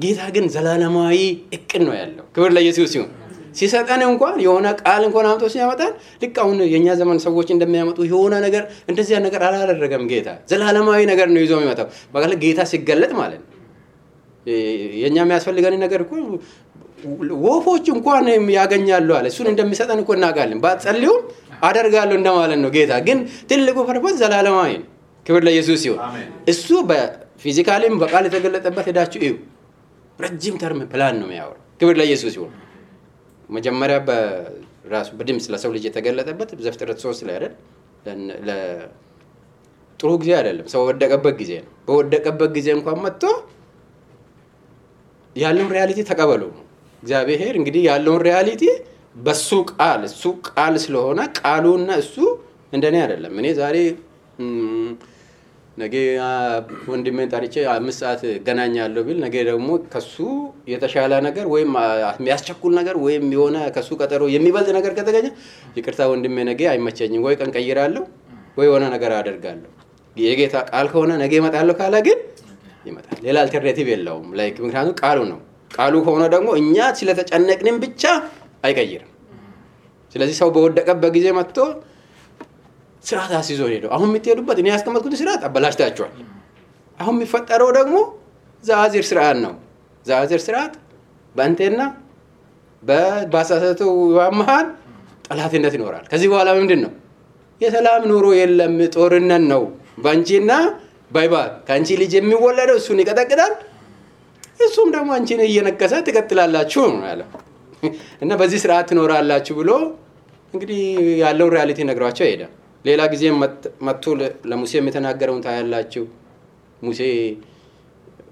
Speaker 1: ጌታ ግን ዘላለማዊ እቅድ ነው ያለው ክብር ለኢየሱስ ይሁን ሲሰጠን እንኳን የሆነ ቃል እንኳን አምጥቶ ሲያመጣን ልክ አሁን የኛ ዘመን ሰዎች እንደሚያመጡ የሆነ ነገር እንደዚህ ነገር አላደረገም ጌታ ዘላለማዊ ነገር ነው ይዞ የሚመጣው በቃ ጌታ ሲገለጥ ማለት ነው የኛ የሚያስፈልገን ነገር እኮ ወፎች እንኳን ያገኛሉ አለ። እሱን እንደሚሰጠን እኮ እናውቃለን። ባትጸልዩም አደርጋለሁ እንደማለት ነው። ጌታ ግን ትልቁ ፐርፐዝ ዘላለማዊ ነው። ክብር ለኢየሱስ ይሁን። እሱ በፊዚካሊም በቃል የተገለጠበት ሄዳችሁ እዩ። ረጅም ተርም ፕላን ነው የሚያወራው። ክብር ለኢየሱስ ይሁን። መጀመሪያ በራሱ በድምጽ ለሰው ልጅ የተገለጠበት ዘፍጥረት 3 ላይ አይደል? ጥሩ ጊዜ አይደለም፣ ሰው ወደቀበት ጊዜ ነው። በወደቀበት ጊዜ እንኳን መጥቶ ያለውን ሪያሊቲ ተቀበሉ። እግዚአብሔር እንግዲህ ያለውን ሪያሊቲ በሱ ቃል እሱ ቃል ስለሆነ ቃሉና እሱ እንደኔ አይደለም። እኔ ዛሬ ነገ ወንድሜን ጠርቼ 5 ሰዓት ገናኛለሁ ቢል ነገ ደግሞ ከሱ የተሻለ ነገር ወይም የሚያስቸኩል ነገር ወይም የሆነ ከሱ ቀጠሮ የሚበልጥ ነገር ከተገኘ ይቅርታ ወንድሜ ነገ አይመቸኝም፣ ወይ ቀን ቀይራለሁ ወይ የሆነ ነገር አደርጋለሁ። የጌታ ቃል ከሆነ ነገ እመጣለሁ ካለ ግን ይመጣል። ሌላ አልተርናቲቭ የለውም። ላይክ ምክንያቱም ቃሉ ነው። ቃሉ ከሆነ ደግሞ እኛ ስለተጨነቅንም ብቻ አይቀይርም። ስለዚህ ሰው በወደቀበት ጊዜ መጥቶ ስርዓት አስይዞ ሄዶ አሁን የምትሄዱበት እኔ ያስቀመጥኩት ስርዓት አበላሽታችኋል። አሁን የሚፈጠረው ደግሞ ዛዚር ስርዓት ነው። ዛዚር ስርዓት በአንተና በባሳሰተው መሃል ጠላትነት ይኖራል። ከዚህ በኋላ ምንድን ነው? የሰላም ኑሮ የለም፣ ጦርነት ነው። ባንቺና ባይባል ከአንቺ ልጅ የሚወለደው እሱን ይቀጠቅጣል፣ እሱም ደግሞ አንቺን እየነከሰ ትቀጥላላችሁ ነው ያለው። እና በዚህ ስርዓት ትኖራላችሁ ብሎ እንግዲህ ያለውን ሪያሊቲ ነግሯቸው ሄደ። ሌላ ጊዜ መጥቶ ለሙሴ የተናገረውን ታያላችሁ። ሙሴ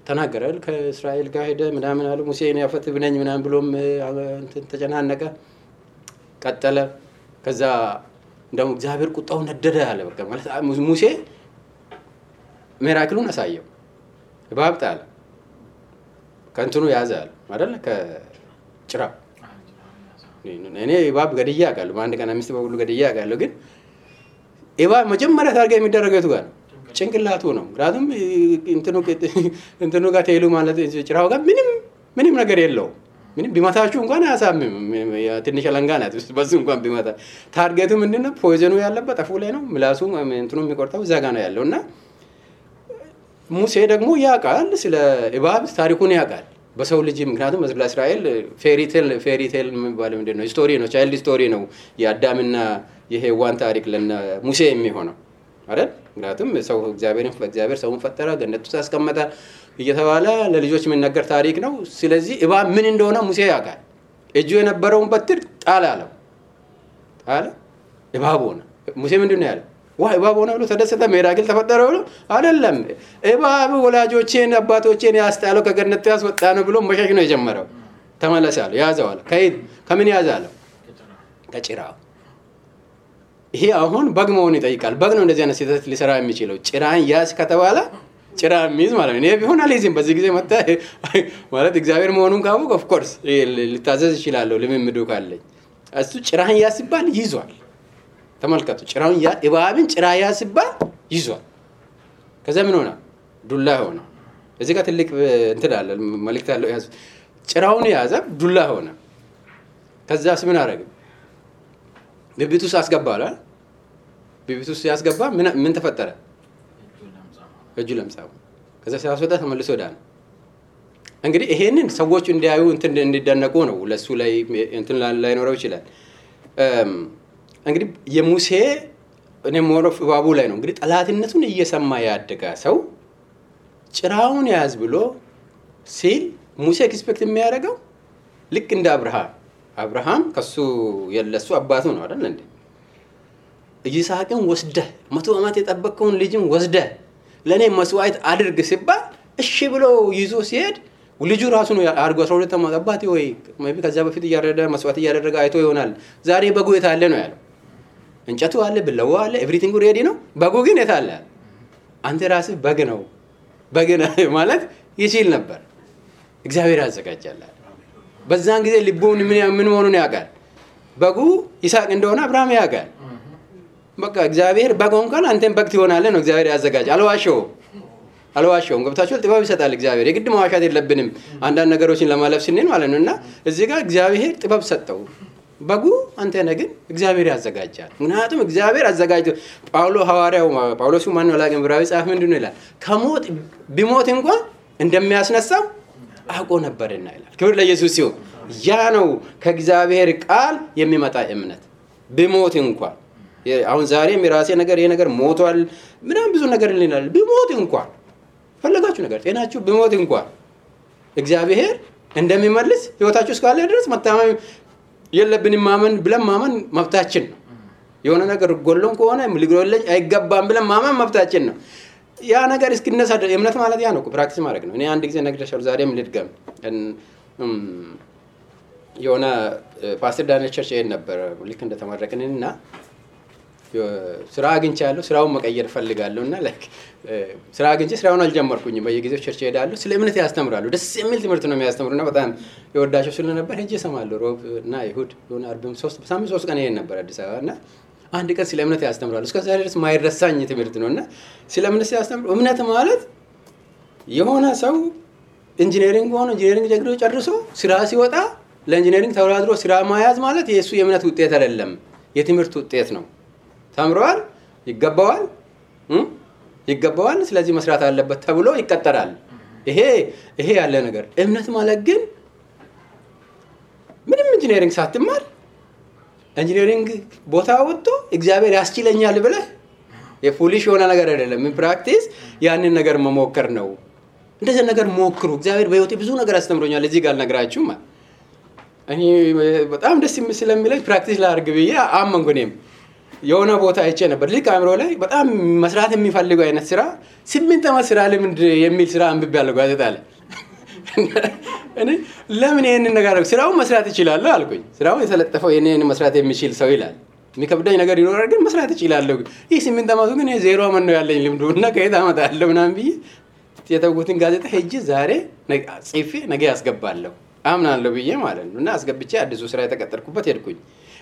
Speaker 1: ተናገራል። ከእስራኤል ጋር ሄደ ምናምን አለ። ሙሴ እኔ አፈትብ ነኝ ምናምን ብሎም ተጨናነቀ፣ ቀጠለ። ከዛ እንደውም እግዚአብሔር ቁጣው ነደደ አለ። በቃ ማለት ሙሴ ሚራክሉን አሳየው። እባብ ጣለ፣ ከእንትኑ ያዘ አለ አይደል? ከጭራ እኔ እባብ ገድዬ አውቃለሁ። በአንድ ቀን 5 በሁሉ ገድዬ አውቃለሁ። ግን እባብ መጀመሪያ ታርጋ የሚደረገው የቱ ጋር ነው? ጭንቅላቱ ነው። ምክንያቱም እንትኑ ጋር ተይሉ ማለት ጭራው ጋር ምንም ነገር የለውም። ምንም ቢመታችሁ እንኳን አያሳምም። ትንሽ አለንጋ ናት። በሱ እንኳን ቢመታ ታርጌቱ ምንድነው? ፖይዘኑ ያለበት አፉ ላይ ነው። ምላሱ እንትኑ የሚቆርጠው እዛ ጋር ነው ያለው። እና ሙሴ ደግሞ ያውቃል፣ ስለ እባብ ታሪኩን ያውቃል በሰው ልጅ። ምክንያቱም ለእስራኤል ፌሪቴል የሚባለው ምንድነው? ስቶሪ ነው፣ ቻይልድ ስቶሪ ነው። የአዳምና የሔዋን ታሪክ ለሙሴ የሚሆነው አይደል? ምክንያቱም ሰው እግዚአብሔር ሰውን ፈጠረ፣ ገነት ውስጥ አስቀመጠ እየተባለ ለልጆች የሚነገር ታሪክ ነው። ስለዚህ እባብ ምን እንደሆነ ሙሴ ያውቃል። እጁ የነበረውን በትር ጣለ አለው። ጣለ፣ እባብ ሆነ። ሙሴ ምንድነው ያለው? ዋይ እባብ ሆነ ብሎ ተደሰተ። ሚራክል ተፈጠረ ብሎ አይደለም። እባብ ወላጆቼን አባቶቼን ያስጣለው ከገነት ያስወጣ ነው ብሎ መሸሽ ነው የጀመረው። ተመለሳለ፣ ያዘው አለ። ከምን ያዛለው? ከጭራው። ይሄ አሁን በግ መሆን ይጠይቃል። በግ ነው እንደዚህ አይነት ስህተት ሊሰራ የሚችለው። ጭራን ያዝ ከተባለ ጭራ የሚይዝ ማለት ነው። እኔ ቢሆን አልይዝም። በዚህ ጊዜ መጣ ማለት እግዚአብሔር መሆኑን ካወቅ ኦፍ ኮርስ ልታዘዝ ይችላል፣ ልምምዱ ካለኝ። እሱ ጭራን ያዝ ሲባል ይዟል። ተመልከቱ፣ ጭራውን እባብን ጭራ ያዝ ሲባል ይዟል። ከዛ ምን ሆነ? ዱላ ሆነ። እዚህ ጋር ትልቅ እንትን አለ፣ መልእክት አለው። ያዝ ጭራውን ያዘ፣ ዱላ ሆነ። ከዛስ ምን አደረገ? ብብቱ ውስጥ አስገባል። ብብቱ ውስጥ ያስገባ ምን ተፈጠረ? እጁ ለምጻው። ከዛ ሲያስወጣ ተመልሶ ዳነ። እንግዲህ ይሄንን ሰዎች እንዲያዩ እንዲደነቁ ነው። ለሱ ላይ እንትን ላይኖረው ይችላል። እንግዲህ የሙሴ እኔ ሞሮፍ እባቡ ላይ ነው እንግዲህ ጠላትነቱን እየሰማ ያደገ ሰው ጭራውን ያዝ ብሎ ሲል ሙሴ ኤክስፔክት የሚያደርገው ልክ እንደ አብርሃም ከሱ የለሱ አባቱ ነው አይደል እንዴ? ይስሐቅን ወስደህ 100 ዓመት የጠበቀውን ልጅን ወስደህ ለኔ መስዋዕት አድርግ ሲባል እሺ ብሎ ይዞ ሲሄድ ልጁ ራሱ ነው አርጎ 12 ዓመት አባቴ ወይ maybe ከዛ በፊት እያረደ መስዋዕት እያደረገ አይቶ ይሆናል። ዛሬ በጉ የታለ ነው ያለው። እንጨቱ አለ፣ ብለዋ አለ፣ ኤቭሪቲንግ ሬዲ ነው። በጉ ግን የታለ? አንተ ራስህ በግ ነው ማለት ይችል ነበር። እግዚአብሔር ያዘጋጃል። በዛን ጊዜ ልቡን ምን መሆኑን ያውቃል። በጉ ይስሐቅ እንደሆነ አብርሃም ያውቃል። በቃ እግዚአብሔር በግ እንኳን አንተም በግ ትሆናለህ ነው እግዚአብሔር ያዘጋጅ። አልዋሸውም። ገብታችኋል? ጥበብ ይሰጣል እግዚአብሔር። የግድ መዋሻት የለብንም አንዳንድ ነገሮችን ለማለፍ ስንል ማለት ነውና እዚህ ጋር እግዚአብሔር ጥበብ ሰጠው። በጉ አንተ ነህ፣ ግን እግዚአብሔር ያዘጋጃል። ምክንያቱም እግዚአብሔር አዘጋጅቶ ጳውሎስ ማን ነው ላገም ብራዊ ጻፍ ምንድነው ይላል? ከሞት ቢሞት እንኳን እንደሚያስነሳው አውቆ ነበርና ይላል። ክብር ለኢየሱስ ይሁን። ያ ነው ከእግዚአብሔር ቃል የሚመጣ እምነት። ቢሞት እንኳን አሁን ዛሬም የራሴ ነገር ይሄ ነገር ሞቷል ምናምን ብዙ ነገር ልናል ቢሞት እንኳን ፈለጋችሁ ነገር ጤናችሁ ቢሞት እንኳን እግዚአብሔር እንደሚመልስ ህይወታችሁ እስካለ ድረስ መታመን የለብንም። ማመን ብለን ማመን መብታችን ነው። የሆነ ነገር ጎሎን ከሆነ ሊጎለኝ አይገባም ብለን ማመን መብታችን ነው። ያ ነገር እስኪነሳ እምነት ማለት ያ ነው ፕራክቲስ ማድረግ ነው። እኔ አንድ ጊዜ ነግሬሻለሁ ዛሬም ልድገም። የሆነ ፓስተር ዳንኤል ቸርች ይሄን ነበር ልክ እንደተመረቅንና ስራ አግኝቻለሁ ስራውን መቀየር ፈልጋለሁና ላይክ ስራ አግኝቼ ስራውን አልጀመርኩኝም። በየጊዜው ቸርች ሄዳለሁ ስለ እምነት ያስተምራሉ። ደስ የሚል ትምህርት ነው የሚያስተምሩና በጣም የወዳቸው ስለነበር ሄጄ እሰማለሁ። ሮብ እና ይሁድ የሆነ አርብም 3 ቀን ይሄን ነበር አዲስ አበባና አንድ ቀን ስለ እምነት ያስተምራሉ። እስከ ዛሬ ድረስ ማይረሳኝ ትምህርት ነውና ስለ እምነት ያስተምሩ። እምነት ማለት የሆነ ሰው ኢንጂነሪንግ ሆኖ ኢንጂነሪንግ ደግሮ ጨርሶ ስራ ሲወጣ ለኢንጂነሪንግ ተወዳድሮ ስራ ማያዝ ማለት የሱ የእምነት ውጤት አይደለም፣ የትምህርት ውጤት ነው። ተምሯል፣ ይገባዋል፣ ስለዚህ መስራት አለበት ተብሎ ይቀጠራል። ይሄ ያለ ነገር። እምነት ማለት ግን ምንም ኢንጂነሪንግ ሳትማር ኢንጂነሪንግ ቦታ ወጥቶ እግዚአብሔር ያስችለኛል ብለህ የፉሊሽ የሆነ ነገር አይደለም። ፕራክቲስ ያንን ነገር መሞከር ነው። እንደዚህ ነገር ሞክሩ። እግዚአብሔር በህይወቴ ብዙ ነገር አስተምሮኛል። እዚህ ጋር ነግራችሁ ማለት እኔ በጣም ደስ ስለሚለኝ ፕራክቲስ ላድርግ ብዬ አመንኩ። እኔም የሆነ ቦታ አይቼ ነበር ልክ አእምሮ ላይ በጣም መስራት የሚፈልገው አይነት ስራ 8 ዓመት ስራ ልምድ የሚል ስራ አንብቤያለሁ ጋዜጣ ላይ። እኔ ለምን ይሄንን ነገር ስራውን መስራት እችላለሁ አልኩኝ። ስራውን የተለጠፈው የኔን መስራት የሚችል ሰው ይላል። የሚከብደኝ ነገር ይኖራል ግን መስራት እችላለሁ። ይህ 8 ዓመቱ ግን 0 ዓመት ነው ያለኝ ልምዱና ከየት አመጣለሁ ምናምን ብዬ የተውኩትን ጋዜጣ ሄጄ ዛሬ ጽፌ ነገ ያስገባለሁ አምናለሁ ብዬ ማለት ነው። እና አስገብቼ አዲሱ ስራ የተቀጠርኩበት ሄድኩኝ።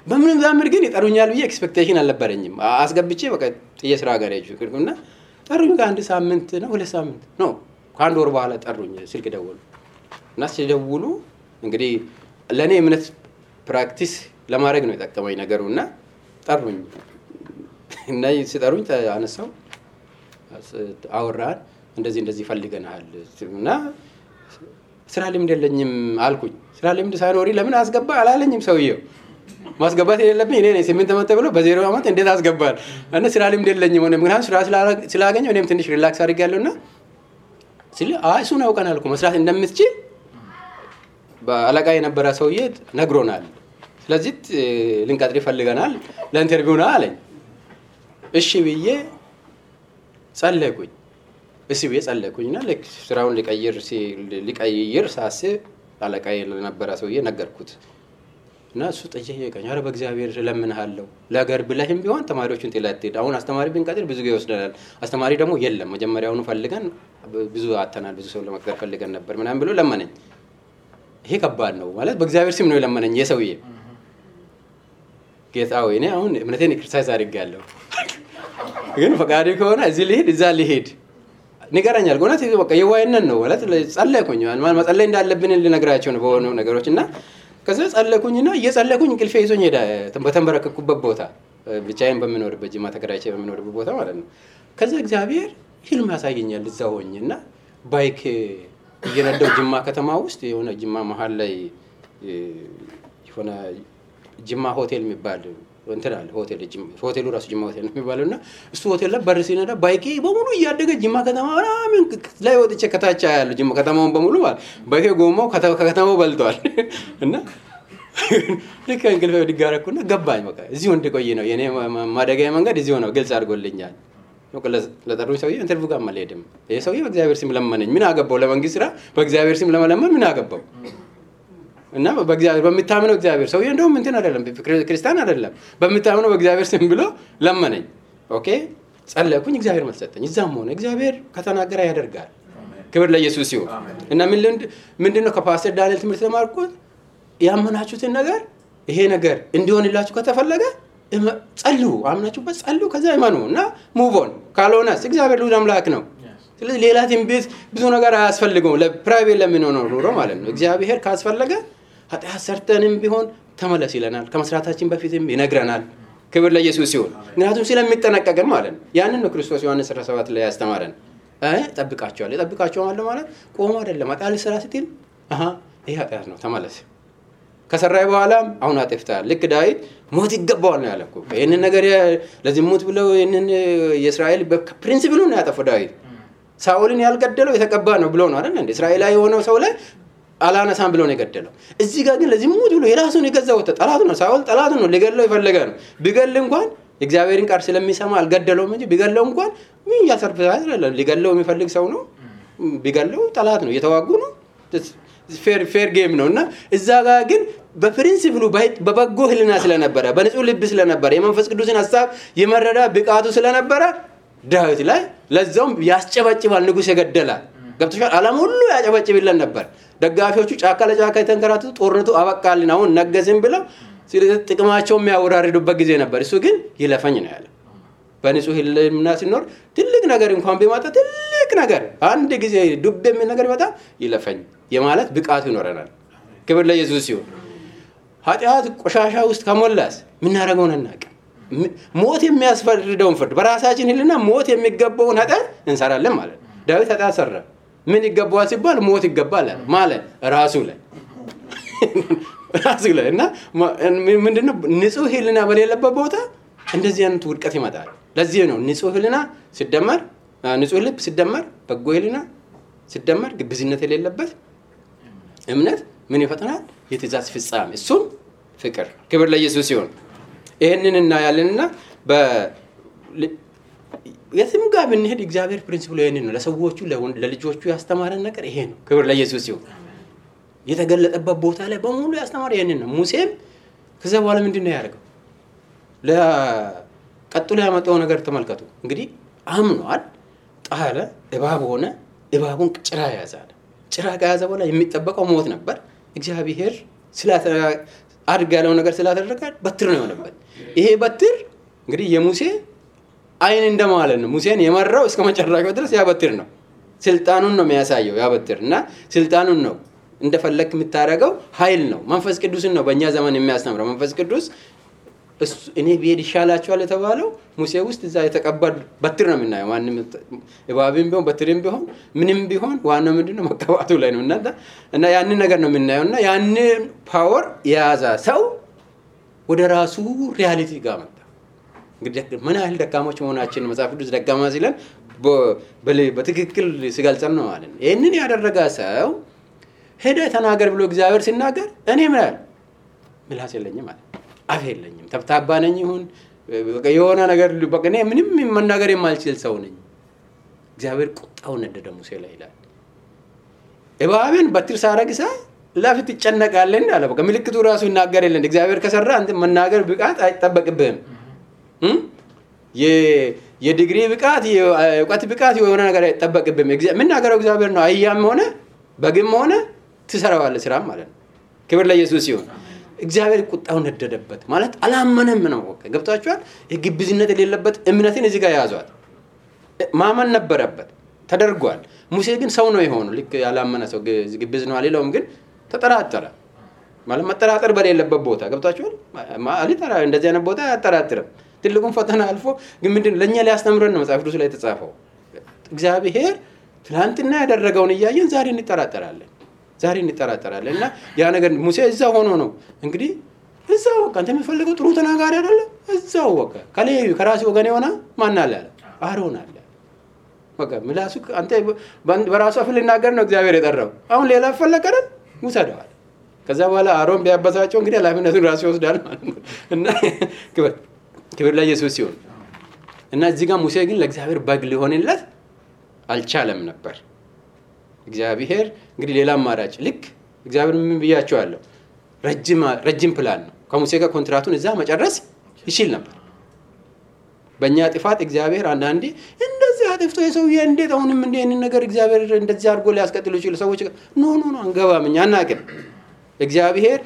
Speaker 1: በምንም ዛምር ግን ይጠሩኛል ብዬ ኤክስፔክቴሽን አልነበረኝም። አስገብቼ በቃ የስራ ጋር ሄድኩና ጠሩኝ። ከአንድ ሳምንት ነው 2 ሳምንት ነው ከአንድ ወር በኋላ ጠሩኝ። ስልክ ደወሉ እና ሲደውሉ እንግዲህ ለኔ እምነት ፕራክቲስ ለማድረግ ነው የጠቀመኝ ነገሩና ጠሩኝ። እና ሲጠሩኝ አነሳው አወራን። እንደዚህ ፈልገናል እና ስራ ልምድ የለኝም አልኩኝ። ስራ ልምድ ሳይኖሪ ለምን አስገባ አላለኝም ሰውየው። ማስገባት የሌለብኝ እኔ ነኝ። 8 ዓመት ተብሎ በ0 ዓመት እንዴት አስገባል? እና ስራ ልምድ የለኝም ሆነ ምክንያቱም ስራ ስላገኘው እኔም ትንሽ ሪላክስ አድርጌያለሁና ሲል እሱን አውቀናል እኮ መስራት እንደምትችል በአለቃ የነበረ ሰውዬ ነግሮናል። ስለዚህ ልንቀጥር ፈልገናል ለኢንተርቪው ነው አለኝ። እሺ ብዬ ጸለይኩኝ። ጸለይኩኝና ስራውን ሊቀይር ሳስብ አለቃ የነበረ ሰውዬ ነገርኩት እና እሱ ጠየቀኝ። ኧረ በእግዚአብሔር ለምንሃለሁ ለሀገር ብለህም ቢሆን ተማሪዎችን ጥለህ አሁን አስተማሪ ብንቀጥር ብዙ ጊዜ ይወስደናል። አስተማሪ ደግሞ የለም መጀመሪያውኑ ፈልገን ብዙ አተናል ብዙ ሰው ለመቅጠር ፈልገን ነበር ምናምን ብሎ ለመነኝ። ይሄ ከባድ ነው ማለት በእግዚአብሔር ስም ነው የለመነኝ የሰውዬ። ጌታ ሆይ እኔ አሁን እምነቴን ክሪቲሳይዝ አድርጌያለሁ ግን ፈቃድህ ከሆነ እዚህ ልሂድ እዛ ልሂድ ንገረኛል። ጎናት በቃ የዋይነን ነው ማለት ጸለይኩኝ። ማለት መጸለይ እንዳለብን ልነግራቸው ነው በሆነ ነገሮችና ከዛ ጸለይኩኝና እየጸለይኩኝ እንቅልፌ ይዞኝ ሄደ። በተንበረከኩበት ቦታ ብቻዬን በሚኖርበት ጅማ ተከራይቼ በሚኖርበት ቦታ ማለት ነው። ከዛ እግዚአብሔር ህልም ያሳየኛል እዛ ሆኜና ባይክ እየነዳሁ ጅማ ከተማ ውስጥ የሆነ ጅማ መሃል ላይ የሆነ ጅማ ሆቴል የሚባል እንትን አለ። ሆቴሉ ራሱ ጅማ ሆቴል ነው የሚባለውና እሱ ሆቴል ላይ በር ሲነዳ ባይኬ በሙሉ እያደገ ጅማ ከተማ ምናምን ላይ ወጥቼ ከታች ያለው ጅማ ከተማውን በሙሉ ማለት ባይኬ ጎማው ከከተማው በልቷል። እና ልክ እንቅልፌ ድጋረኩና ገባኝ። በቃ እዚሁ እንድቆይ ነው የኔ ማደጋዬ መንገድ እዚሁ ነው ግልጽ አድርጎልኛል። ለጠሩኝ ሰውዬ ኢንተርቪው ጋር አልሄድም። ይሄ ሰውዬ በእግዚአብሔር ስም ለመነኝ። ምን አገባው? ለመንግስት ስራ በእግዚአብሔር ስም ለመለመን ምን አገባው? እና በእግዚአብሔር በሚታመነው እግዚአብሔር ሰውዬ እንደውም እንትን አይደለም ክርስቲያን አይደለም በሚታመነው በእግዚአብሔር ስም ብሎ ለመነኝ። ኦኬ ጸለይኩኝ። እግዚአብሔር መልስ ሰጠኝ። እዛም ሆነ እግዚአብሔር ከተናገረ ያደርጋል። ክብር ለኢየሱስ ይሁን። እና ምንድነው ከፓስተር ዳንኤል ትምህርት ተማርኩት? ያመናችሁትን ነገር ይሄ ነገር እንዲሆንላችሁ ከተፈለገ ጸልዩ፣ አምናችሁበት ጸልዩ፣ ከዛ ይመኑ እና ሙቭ ኦን። ካልሆነስ እግዚአብሔር ልዑል አምላክ ነው። ስለዚህ ሌላ ትንቢት ብዙ ነገር አያስፈልገውም። ለፕራይቬት ለምንሆነው ኑሮ ማለት ነው። እግዚአብሔር ካስፈለገ ኃጢአት ሰርተንም ቢሆን ተመለስ ይለናል። ከመስራታችን በፊትም ይነግረናል። ክብር ለኢየሱስ ይሁን። ምክንያቱም ስለሚጠነቀቅን ማለት ነው። ያንን ነው ክርስቶስ ዮሐንስ 17 ላይ ያስተማረን። ጠብቃቸዋል ማለት ቆሞ አይደለም። ኃጢአት ስራ ስትል ይሄ ኃጢአት ነው ተመለስ ከሰራይ በኋላ አሁን አጥፍታል ልክ ዳዊት ሞት ይገባዋል ነው ያለው ይሄንን ነገር ለዝሙት ብለው ይሄንን የእስራኤል በፕሪንሲፕሉ ነው ያጠፋው ዳዊት ሳኦልን ያልገደለው የተቀባ ነው ብሎ ነው አይደል እንዴ እስራኤላዊ የሆነው ሰው ላይ አላነሳም ብሎ ነው የገደለው እዚህ ጋር ግን ለዝሙት ብሎ የራሱን የገዛው ጠላት ነው ሳኦል ጠላት ነው ሊገለው ይፈልጋ ነው ቢገል እንኳን እግዚአብሔርን ቃል ስለሚሰማ አልገደለውም እንጂ ቢገለው እንኳን ምን ያሰርፋል አይደል ሊገለው የሚፈልግ ሰው ነው ቢገለው ጠላት ነው የተዋጉ ነው ፌር ጌም ነውና እዛ ጋር ግን በፕሪንሲፕሉ በበጎ ህልና ስለነበረ በንጹህ ልብ ስለነበረ የመንፈስ ቅዱስን ሐሳብ የመረዳ ብቃቱ ስለነበረ ዳዊት ላይ ለዛውም ያስጨበጭባል ንጉስ የገደላ ገብቶሻል ዓለም ሁሉ ያጨበጭብልን ነበር ደጋፊዎቹ ጫካ ለጫካ የተንከራተቱ ጦርነቱ አበቃልን አሁን ነገስን ብለው ጥቅማቸው የሚያወራርዱበት ጊዜ ነበር እሱ ግን ይለፈኝ ነው ያለው በንጹህ ህልና ሲኖር ትልቅ ነገር እንኳን ቢመጣ ትልቅ ነገር አንድ ጊዜ ዱብ የሚል ነገር ይመጣ ይለፈኝ የማለት ብቃቱ ይኖረናል ክብር ለኢየሱስ ይሁን ኃጢአት ቆሻሻ ውስጥ ከሞላስ ምን ያደርገውን እናቀ ሞት የሚያስፈርደውን ፍርድ በራሳችን ህልና ሞት የሚገባውን ኃጢአት እንሰራለን ማለት ዳዊት ኃጢአት ሰራ ምን ይገባዋል ሲባል ሞት ይገባል ማለት ራሱ ላይ እና ምንድነው ንጹህ ህልና በሌለበት ቦታ እንደዚህ አይነት ውድቀት ይመጣል ለዚህ ነው ንጹህ ህልና ሲደመር ንጹህ ልብ ሲደመር በጎ ህልና ሲደመር ግብዝነት የሌለበት እምነት ምን ይፈጥራል የትእዛዝ ፍጻሜ እሱም ፍቅር ክብር ለኢየሱስ ይሁን ይሄንንና ያለንና የትም ጋር ብንሄድ እግዚአብሔር ፕሪንሲፕሉ ይሄንን ነው ለሰዎቹ ለልጆቹ ያስተማረን ነገር ይሄ ነው ክብር ለኢየሱስ ይሁን የተገለጠበት ቦታ ላይ በሙሉ ያስተማረ ይሄንን ነው ሙሴም ከዛ በኋላ ምንድነው ያደረገው ለቀጥሎ ያመጣው ነገር ተመልከቱ እንግዲህ አምኗል ጣለ እባብ ሆነ እባቡን ጭራ ያዛለ ጭራ ከያዘ በኋላ የሚጠበቀው ሞት ነበር እግዚአብሔር አድርግ ያለው ነገር ስላደረገ በትር ነው የሆነበት ይሄ በትር እንግዲህ የሙሴ አይን እንደማለት ነው ሙሴን የመራው እስከ መጨረሻው ድረስ ያ በትር ነው ስልጣኑን ነው የሚያሳየው ያ በትር እና ስልጣኑን ነው እንደፈለክ የምታረጋው ኃይል ነው መንፈስ ቅዱስን ነው በእኛ ዘመን የሚያስተምረው መንፈስ ቅዱስ እኔ ቢሄድ ይሻላችኋል የተባለው ሙሴ ውስጥ እዛ የተቀበል በትር ነው የምናየው ማንንም እባብም ቢሆን በትርም ቢሆን ምንም ቢሆን ዋናው ምንድነው መቀባቱ ላይ ነው እና ያንን ነገር ነው የምናየውና ያንን ፓወር የያዘ ሰው ወደ ራሱ ሪያሊቲ ጋር መጣ እንግዲህ ምን ያህል ደካሞች መሆናችን መጽሐፍ ቅዱስ ደካማ ሲለን በትክክል ሲገልጸን ነው ማለት ነው ይሄንን ያደረገ ሰው ሄደ ተናገር ብሎ እግዚአብሔር ሲናገር እኔ ምላስ የለኝም ማለት አፍ የለኝም ተብታባ ነኝ ይሁን የሆነ ነገር በቃ እኔ ምንም መናገር የማልችል ሰው ነኝ እግዚአብሔር ቁጣው ነደደ ሙሴ ላይ ይላል እባብን በትር ሳረግሳ ለፍት ይጨነቃል እንዳለ በቃ ምልክቱ ራሱ ይናገርልን እግዚአብሔር ከሰራ አንተ መናገር ብቃት አይጠበቅብህም የዲግሪ ብቃት የእውቀት ብቃት የሆነ ነገር አይጠበቅብህም ምን ነገረው እግዚአብሔር ነው አያም ሆነ በግም ሆነ ትሰራዋለህ ስራ ማለት ነው ክብር ለኢየሱስ ይሁን እግዚአብሔር ቁጣው ነደደበት ማለት አላመነም ነው ገብታችኋል የግብዝነት የሌለበት እምነትን እዚህ ጋር ያዟል ማመን ነበረበት ተደርጓል ሙሴ ግን ሰው ነው የሆነው ልክ ያላመነ ሰው ግብዝ ነው አልለውም ግን ተጠራጠረ ማለት መጠራጠር በሌለበት ቦታ ገብታችኋል ማለት እንደዚህ አይነት ቦታ ያጠራጥርም ትልቁን ፈተና አልፎ ግን ምንድን ለኛ ሊያስተምረን ነው መጽሐፍ ቅዱስ ላይ ተጻፈው እግዚአብሔር ትላንትና ያደረገውን እያየን ዛሬ እንጠራጠራለን እና ያ ነገር ሙሴ እዛው ሆኖ ነው እንግዲህ እዛው አንተ የምፈልገው ጥሩ ተናጋሪ አይደለ እዛው ወቀ ከሌዩ ከራሱ ወገን የሆነ ማን አለ አሮን አለ ወቀ ምላሱ አንተ በራሱ አፍ ሊናገር ነው እግዚአብሔር የጠራው አሁን ሌላ ፈለቀረን ሙሰደዋል ከዛ በኋላ አሮን ቢያበሳቸው እንግዲህ ኃላፊነቱን ራሱ ይወስዳል ማለት ነው እና ክብር ለኢየሱስ ይሁን እና እዚህ ጋር ሙሴ ግን ለእግዚአብሔር በግ ሊሆንለት አልቻለም ነበር እግዚአብሔር እንግዲህ ሌላ አማራጭ ልክ እግዚአብሔር ምን ብያቸዋለሁ ረጅም ፕላን ነው ከሙሴ ጋር ኮንትራቱን እዛ መጨረስ ይችል ነበር በእኛ ጥፋት እግዚአብሔር አንዳንዴ እንደዚህ አጥፍቶ የሰውዬ እንዴት አሁንም እንደዚህ ነገር እግዚአብሔር እንደዚህ አድርጎ ሊያስቀጥሉ ይችላል ሰዎች ኖ አንገባም እኛ አናውቅም እግዚአብሔር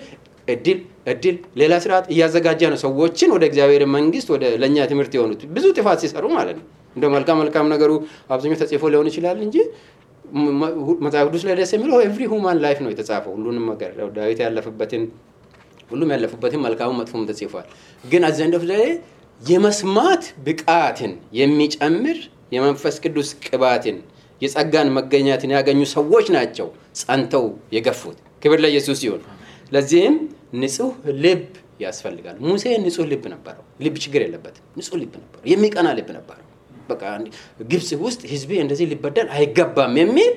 Speaker 1: እድል ሌላ ስርዓት እያዘጋጀ ነው ሰዎችን ወደ እግዚአብሔር መንግስት ወደ ለኛ ትምህርት የሆኑት ብዙ ጥፋት ሲሰሩ ማለት ነው እንደ መልካም ነገሩ አብዛኛው ተጽፎ ሊሆን ይችላል እንጂ መጽሐፍ ቅዱስ ላይ ደስ የሚለው ኤቭሪ ሁማን ላይፍ ነው የተጻፈው ሁሉንም ነገር ዳዊት ያለፈበትን ሁሉም ያለፈበትን መልካም መጥፎም ተጽፏል ግን አዘንደፍ ላይ የመስማት ብቃትን የሚጨምር የመንፈስ ቅዱስ ቅባትን የጸጋን መገኛትን ያገኙ ሰዎች ናቸው ጸንተው የገፉት ክብር ለኢየሱስ ይሁን ለዚህም ንጹህ ልብ ያስፈልጋል። ሙሴ ንጹህ ልብ ነበረው። ልብ ችግር የለበትም። ንጹህ ልብ ነበረው። የሚቀና ልብ ነበረው። በቃ ግብጽ ውስጥ ህዝቤ እንደዚህ ሊበደል አይገባም የሚል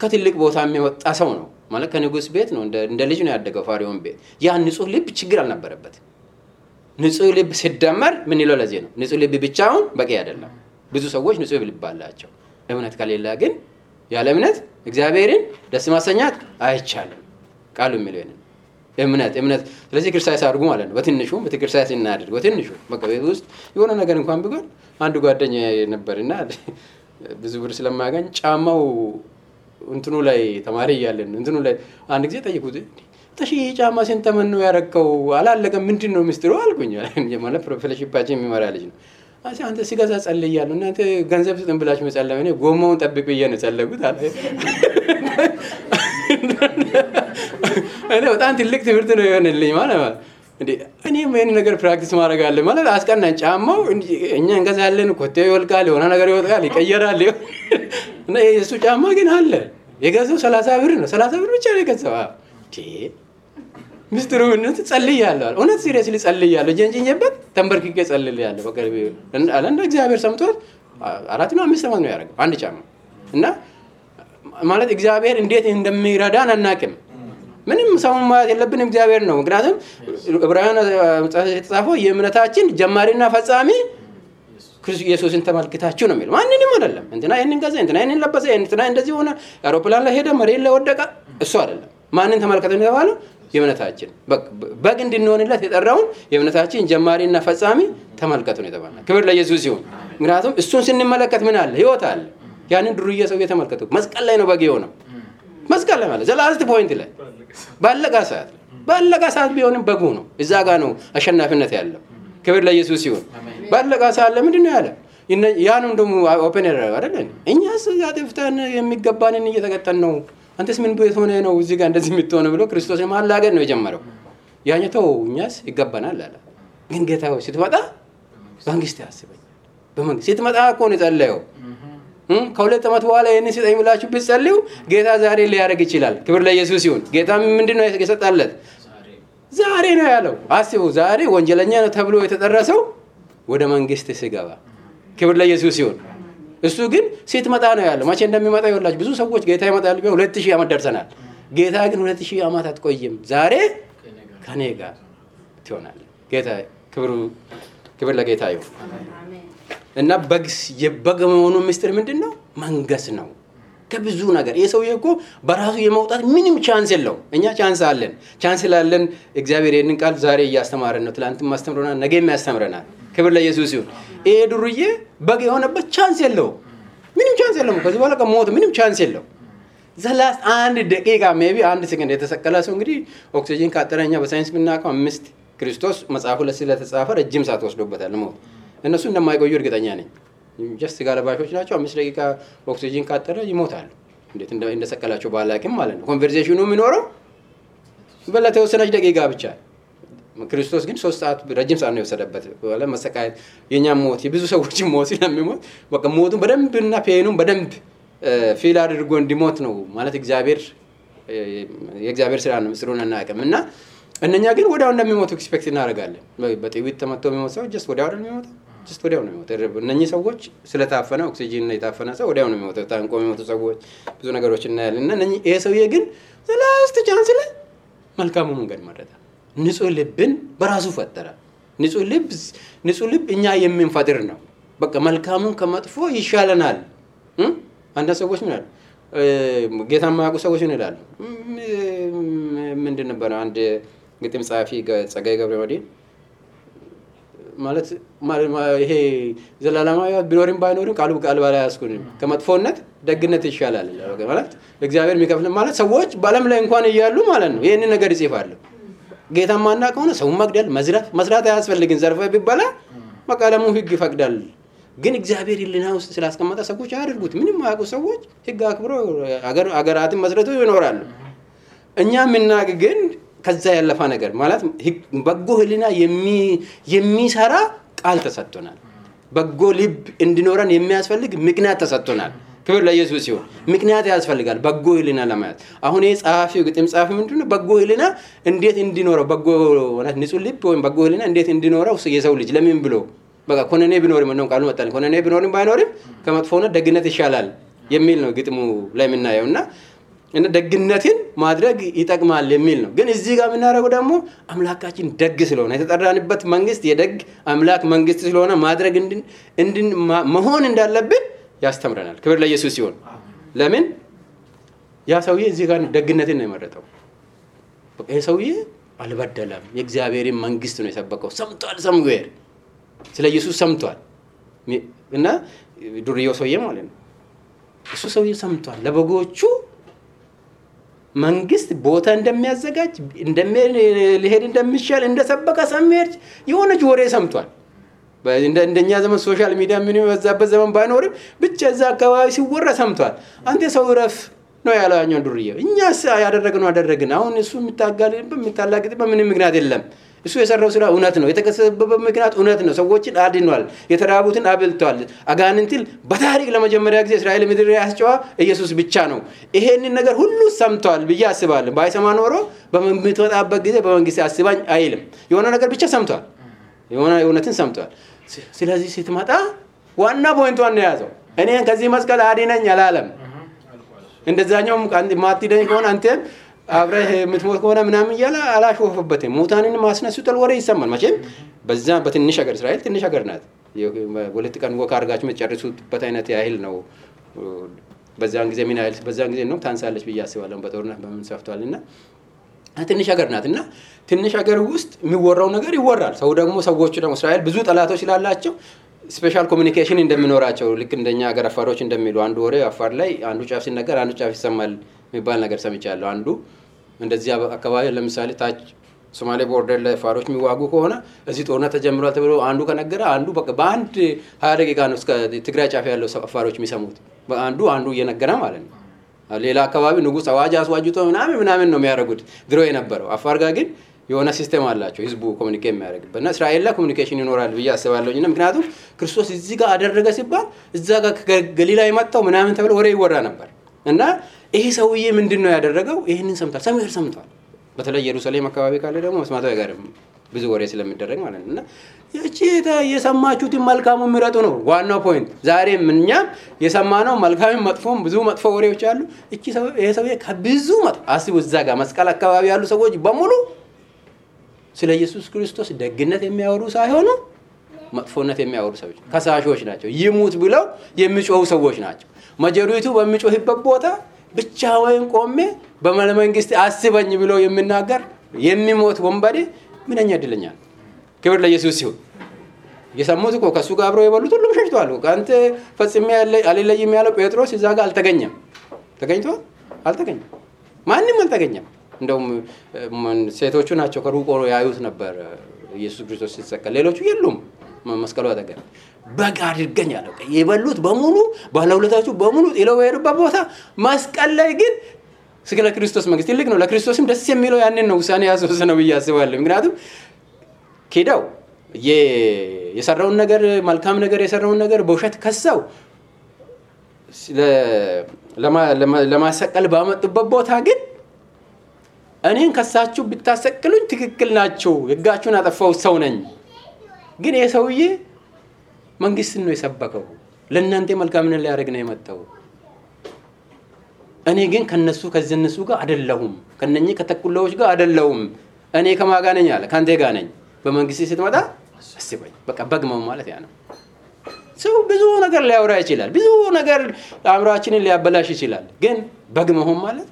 Speaker 1: ከትልቅ ቦታ የሚወጣ ሰው ነው ማለት ከንጉስ ቤት ነው እንደ ልጅ ነው ያደገው ፋሪዮን ቤት። ያ ንጹህ ልብ ችግር አልነበረበት። ንጹህ ልብ ሲደመር ምን ይለው ለዚህ ነው ንጹህ ልብ ብቻውን በቂ አይደለም። ብዙ ሰዎች ንጹህ ልብ አላቸው። እምነት ከሌለ ግን ያለ እምነት እግዚአብሔርን ደስ ማሰኛት አይቻልም። ቃሉ የሚለው ነው እምነት። ስለዚህ ክርስቲያን ሳርጉ ማለት ነው በትንሹ በትክክለኛ እናድርግ። በትንሹ በቃ ቤት ውስጥ የሆነ ነገር እንኳን ቢሆን አንድ ጓደኛ ነበርና ብዙ ብር ስለማያገኝ ጫማው እንትኑ ላይ ተማሪ ያለን እንትኑ ላይ አንድ ጊዜ ጠይቁት ተሺ ጫማ ስንተመን ነው ያረከው አላለቀም ምንድነው ሚስጥሩ አልኩኝ። ማለት ፕሮፌሽናችን የሚመራ ልጅ ነው። አንተ ሲገዛ ጸልያለሁ እናንተ ገንዘብ ስጥን ብላችሁ መጸለይ ነው ጎማውን ጠብቅ ብዬ ነው ጸለይኩት አለ። እኔ በጣም ትልቅ ትምህርት ነው የሆነልኝ ማለት ነው። እንዴ እኔም ይሄን ነገር ፕራክቲስ ማድረግ አለ ማለት አስቀናኝ። ጫማው እኛ እንገዛለን ኮቴው ይወልቃል የሆነ ነገር ይወጣል ይቀየራል እና የሱ ጫማ ግን አለ የገዛው 30 ብር ነው። 30 ብር ብቻ ነው የገዛው። ሚስጥሩ ምን ጸልያለሁ እውነት ሲሪየስሊ ጸልያለሁ ጀንጅኝበት ተንበርክኬ ጸልያለሁ። በቃ አለና እግዚአብሔር ሰምቶት 4 ነው 5 ነው ያደረገው አንድ ጫማ እና ማለት እግዚአብሔር እንዴት እንደሚረዳን አናውቅም። ምንም ሰው ማለት የለብንም እግዚአብሔር ነው። ምክንያቱም ዕብራውያን የተጻፈው የእምነታችን ጀማሪና ፈጻሚ ክርስቶስ ኢየሱስን ተመልክታችሁ ነው የሚለው ማንንም አይደለም። እንትና ይሄንን ገዛ እንትና ይሄንን ለበሰ እንትና እንደዚህ ሆነ አውሮፕላን ላይ ሄደ መሬት ላይ ወደቀ እሱ አይደለም። ማንን ተመልከቱ ነው የተባለው? የእምነታችን በግ እንድንሆንለት የጠራውን የእምነታችን ጀማሪና ፈጻሚ ተመልከቱ ነው የተባለው። ክብር ለኢየሱስ ይሁን። ምክንያቱም እሱን ስንመለከት ምን አለ? ህይወት አለ። ያንን ድሩዬ ሰው የተመልከቱ መስቀል ላይ ነው በግ የሆነው። መስቀል ላይ ማለት ዘላስት ፖይንት ላይ ባለቀ ሰዓት ቢሆንም በጉ ነው። እዛ ጋር ነው አሸናፊነት ያለው። ክብር ለኢየሱስ ይሁን። ባለቀ ሰዓት ለምንድን ነው ያለ? ያንን ደግሞ ኦፕን ያደረገ አይደል? እኛስ ያጥፍተን የሚገባንን እየተቀጠን ነው። አንተስ ምን ቤት ሆነ ነው እዚህ ጋር እንደዚህ የምትሆነው ብሎ ክርስቶስ ማላገድ ነው የጀመረው። ያኛው እኛስ ይገባናል አለ። ግን ጌታው ስትመጣ መንግስት ያስበኝ በመንግስት ስትመጣ እኮ ነው የጸለየው። ከሁለት ዓመት በኋላ ይሄን ሲጠኝ ብላችሁ ብትጸልዩ ጌታ ዛሬ ሊያደርግ ይችላል። ክብር ለኢየሱስ ይሁን። ጌታ ምንድነው የሰጣለት? ዛሬ ነው ያለው። አስቡ ዛሬ ወንጀለኛ ነው ተብሎ የተጠረሰው ወደ መንግስት ሲገባ ክብር ለኢየሱስ ይሁን። እሱ ግን ስትመጣ ነው ያለው። መቼ እንደሚመጣ ይወላችሁ ብዙ ሰዎች ጌታ ይመጣል ቢሆን 2000 ዓመት ደርሰናል። ጌታ ግን 2000 ዓመት አትቆይም። ዛሬ ከኔ ጋር ትሆናለህ። ጌታ ክብር ለጌታ ይሁን። እና የበግ መሆኑ ምስጢር ምንድነው? መንገስ ነው ከብዙ ነገር። የሰውዬ እኮ በራሱ የመውጣት ምንም ቻንስ የለው። እኛ ቻንስ አለን። እግዚአብሔር ይሄንን ቃል ዛሬ እያስተማረን ነው። ትላንትም አስተምሮናል፣ ነገም ያስተምረናል። ክብር ለኢየሱስ ይሁን። ይሄ ድሩዬ በግ የሆነበት ቻንስ የለው። ምንም ቻንስ የለው። ከዚህ በኋላ ከሞት ምንም ቻንስ የለው። ዘላስ አንድ ደቂቃ ሜቢ አንድ ሰከንድ የተሰቀለ ሰው እንግዲህ ኦክሲጅን ካጠረኛ በሳይንስ ብናውቀው 5 ክርስቶስ መጽሐፉ ላይ ስለተጻፈ ረጅም ሰዓት ወስዶበታል ሞት። እነሱ እንደማይቆዩ እርግጠኛ ነኝ። ጀስት ጋለባሾች ናቸው። 5 ደቂቃ ኦክሲጅን ካጠረ ይሞታሉ። እንዴት እንደሰቀላቸው ባላቅም ማለት ነው። ኮንቨርሴሽኑ የሚኖረው በለተወሰነች ደቂቃ ብቻ። ክርስቶስ ግን 3 ሰዓት ረጅም ሰዓት ነው የወሰደበት። ወላ መሰቃየት የኛ ሞት የብዙ ሰዎች ሞት ስለሚሞት በቃ ሞቱን በደንብና ፔኑን በደንብ ፊል አድርጎ እንዲሞት ነው ማለት የእግዚአብሔር ስራ ነው። ምስሩን እናቀምና እነኛ ግን ወዲያው እንደሚሞቱ ኤክስፔክት እናደርጋለን። በጥይት ተመቶ የሚሞት ሰው ጀስት ወዲያው ነው የሚሞተው። ወዲያው ነው የሚሞተው። እነኚህ ሰዎች ስለታፈነ ኦክሲጅን ነው የታፈነ ሰው ወዲያው ነው የሚሞተው። ታንቆ የሚሞቱ ሰዎች ብዙ ነገሮች እናያለን። እና እነኚህ ይሄ ሰውዬ ግን ላስት ቻንስ ላይ መልካሙ መንገድ መረጠ። ንጹህ ልብን በራሱ ፈጠረ። ንጹህ ልብ እኛ የምንፈጥር ነው። በቃ መልካሙን ከመጥፎ ይሻለናል። አንዳንድ ሰዎች ምን አሉ? ጌታ የማያውቁ ሰዎች ምን ይላሉ? ምንድን ነበር አንድ ግጥም ጻፊ ጸጋዬ ገብረመድህን ማለት ይሄ ዘላለማዊ ቢኖርም ባይኖርም ቃል ባላ ያስኩን ከመጥፎነት ደግነት ይሻላል ማለት እግዚአብሔር የሚከፍል ማለት ሰዎች በዓለም ላይ እንኳን እያሉ ማለት ነው ይሄንን ነገር ይጽፋሉ። ጌታ ማናውቀው ነው ሰው መግደል መስራት አያስፈልግም። ዘርፈ ቢባላ መቃለሙ ህግ ይፈቅዳል። ግን እግዚአብሔር ይልና ውስጥ ስላስቀመጠ ሰዎች አያደርጉት። ምንም ማያውቁ ሰዎች ህግ አክብሮ አገራትን መስረቱ ይኖራሉ። እኛ ምናቅ ግን ከዛ ያለፈ ነገር ማለት በጎ ህሊና የሚሰራ ቃል ተሰጥቶናል። በጎ ልብ እንዲኖረን የሚያስፈልግ ምክንያት ተሰጥቶናል። ክብር ለኢየሱስ ይሁን። ምክንያት ያስፈልጋል በጎ ህሊና ለማየት። አሁን የጻፊው ግጥም ጻፊ ምንድነው በጎ ህሊና እንዴት እንዲኖረው በጎ ማለት ንጹህ ልብ ወይም በጎ ህሊና እንዴት እንዲኖረው የሰው ልጅ ለምን ብሎ በቃ ኮነኔ ቢኖርም ነው ቃሉ መጣል ኮነኔ ቢኖርም ባይኖርም ከመጥፎነት ደግነት ይሻላል የሚል ነው ግጥሙ ላይ የምናየውና እና ደግነትን ማድረግ ይጠቅማል የሚል ነው። ግን እዚህ ጋር የምናደርገው ደግሞ አምላካችን ደግ ስለሆነ የተጠራንበት መንግስት የደግ አምላክ መንግስት ስለሆነ ማድረግ መሆን እንዳለብን ያስተምረናል። ክብር ለኢየሱስ ይሁን። ለምን ያ ሰውዬ እዚህ ጋር ደግነትን ነው የመረጠው። በቃ ይሄ ሰውዬ አልበደለም፣ የእግዚአብሔርን መንግስት ነው የሰበከው። ሰምቷል፣ ሰምጓል፣ ስለ ኢየሱስ ሰምቷል። እና ዱርዬው ሰውዬ ማለት ነው እሱ ሰውዬ ሰምቷል ለበጎቹ መንግስት ቦታ እንደሚያዘጋጅ ሊሄድ እንደሚሻል እንደሰበከ ሰምሄድ የሆነች ወሬ ሰምቷል። እንደኛ ዘመን ሶሻል ሚዲያ ምን ይወዛበት ዘመን ባይኖርም ብቻ እዛ አካባቢ ሲወራ ሰምቷል። አንተ ሰው ረፍ ነው ያለው ያኛው ዱርዬው። እኛስ ያደረግነው አደረግን። አሁን እሱ የሚታላግጥበት ምንም ምክንያት የለም። እሱ የሰራው ስራ እውነት ነው። የተከሰበበት ምክንያት እውነት ነው። ሰዎችን አድኗል፣ የተራቡትን አብልቷል። አጋንንትን በታሪክ ለመጀመሪያ ጊዜ እስራኤል ምድር ያስጨዋ ኢየሱስ ብቻ ነው። ይሄንን ነገር ሁሉ ሰምቷል ብዬ አስባለሁ። ባይሰማ ኖሮ በመምትወጣበት ጊዜ በመንግስት አስባኝ አይልም። የሆነ ነገር ብቻ ሰምቷል፣ የሆነ እውነትን ሰምቷል። ስለዚህ ስትመጣ ዋና ፖይንቷን ነው ያዘው። እኔን ከዚህ መስቀል አድነኝ አላለም። እንደዛኛው ማትድነኝ ከሆነ አንተም አብረህ የምትሞት ከሆነ ምናምን እያለ አላሾፈበትም። ሙታንን ማስነሱታል ወሬ ይሰማል። መቼም በዛ በትንሽ ሀገር እስራኤል ትንሽ ሀገር ናት። ሁለት ቀን ወክ አድርጋችሁ የምትጨርሱበት አይነት ያህል ነው። በዛን ጊዜ ምን ያህል በዛን ጊዜ ነው ታንሳለች ብዬ አስባለሁ። በጦርነት በምን ሰፍቷልና ትንሽ ሀገር ናት እና ትንሽ ሀገር ውስጥ የሚወራው ነገር ይወራል። ሰው ደግሞ ሰዎቹ ደግሞ እስራኤል ብዙ ጠላቶች ስላላቸው ስፔሻል ኮሙኒኬሽን እንደሚኖራቸው ልክ እንደኛ ሀገር አፋሮች እንደሚሉ አንዱ ወሬ አፋር ላይ አንዱ ጫፍ ሲነገር አንዱ ጫፍ ይሰማል የሚባል ነገር ሰምቻለሁ። አንዱ እንደዚህ አካባቢ ለምሳሌ ታች ሶማሌ ቦርደር ላይ አፋሮች የሚዋጉ ከሆነ እዚህ ጦርነት ተጀምሯል ተብሎ አንዱ ከነገረ አንዱ በቃ በአንድ 20 ደቂቃ ነው እስከ ትግራይ ጫፍ ያለው አፋሮች የሚሰሙት። አንዱ እየነገረ ማለት ነው። ሌላ አካባቢ ንጉስ አዋጅ አስዋጅቶ ምናምን ነው የሚያደርጉት ድሮ የነበረው። አፋር ጋር ግን የሆነ ሲስተም አላቸው ህዝቡ ኮሙኒኬት የሚያደርግበት እና እስራኤል ላይ ኮሙኒኬሽን ይኖራል ብዬ አስባለሁኝ። እና ምክንያቱም ክርስቶስ እዚህ ጋር አደረገ ሲባል እዛ ጋር ገሊላ የመጣው ምናምን ተብሎ ወሬ ይወራ ነበር። እና ይሄ ሰውዬ ምንድነው ያደረገው? ይሄንን ሰምቷል። በተለይ ኢየሩሳሌም አካባቢ ካለ ደግሞ መስማቱ አይቀርም ብዙ ወሬ ስለሚደረግ ማለት ነው። እና እቺ የሰማችሁት መልካሙ ምረጡ ነው ዋናው ፖይንት። ዛሬም እኛም የሰማነው መልካም መጥፎም ብዙ መጥፎ ወሬዎች አሉ። እቺ ይሄ ሰውዬ ከብዙ አስቡ እዛ ጋር መስቀል አካባቢ ያሉ ሰዎች በሙሉ ስለ ኢየሱስ ክርስቶስ ደግነት የሚያወሩ ሳይሆኑ መጥፎነት የሚያወሩ ሰዎች ከሳሾች ናቸው። ይሙት ብለው የሚጮሁ ሰዎች ናቸው። መጀሪቱ በሚጮህበት ቦታ ብቻውን ቆሜ በመንግስት አስበኝ ብሎ የሚናገር የሚሞት ወንበዴ ምንኛ እድለኛ ነው። ክብር ለኢየሱስ ይሁን። የሰሙት እኮ ከሱ ጋር አብረው የበሉት ሁሉም ሸሽተዋል። አንተ ፈጽሜ አልለይም ያለው ጴጥሮስ እዛ ጋር አልተገኘም። ተገኝቷል? አልተገኘም። ማንም አልተገኘም። እንደውም ሴቶቹ ናቸው ከሩቆ ያዩት ነበር ኢየሱስ ክርስቶስ ሲሰቀል። ሌሎቹ የሉም መስቀሉ አጠገብ። በጋ አድርገኝ አለው። የበሉት በሙሉ ባለውለታቹ በሙሉ ጥለው የሄዱበት ቦታ መስቀል ላይ ግን ስለ ክርስቶስ መንግስት ትልቅ ነው። ለክርስቶስም ደስ የሚለው ያንን ነው ውሳኔ ያስወሰነው ብዬ አስባለሁ። ምክንያቱም ኬዳው የሰራውን ነገር መልካም ነገር የሰራውን ነገር በውሸት ከሰው ለማሰቀል ባመጡበት ቦታ ግን እኔን ከሳችሁ ብታሰቅሉኝ ትክክል ናችሁ፣ ህጋችሁን አጠፋው ሰው ነኝ። ግን ይሄ ሰውዬ መንግስትን ነው የሰበከው፣ ለእናንተ መልካምን ሊያደርግ ነው የመጣው። እኔ ግን ከነሱ ከነሱ ጋር አይደለሁም፣ ከነኚህ ከተኩላዎች ጋር አይደለሁም። እኔ ከማን ጋር ነኝ አለ? ካንተ ጋር ነኝ። በመንግስት ስትመጣ አስበኝ። በቃ በግመው ማለት ያ ነው። ሰው ብዙ ነገር ሊያወራ ይችላል፣ ብዙ ነገር አእምሮአችንን ሊያበላሽ ይችላል። ግን በግመው ማለት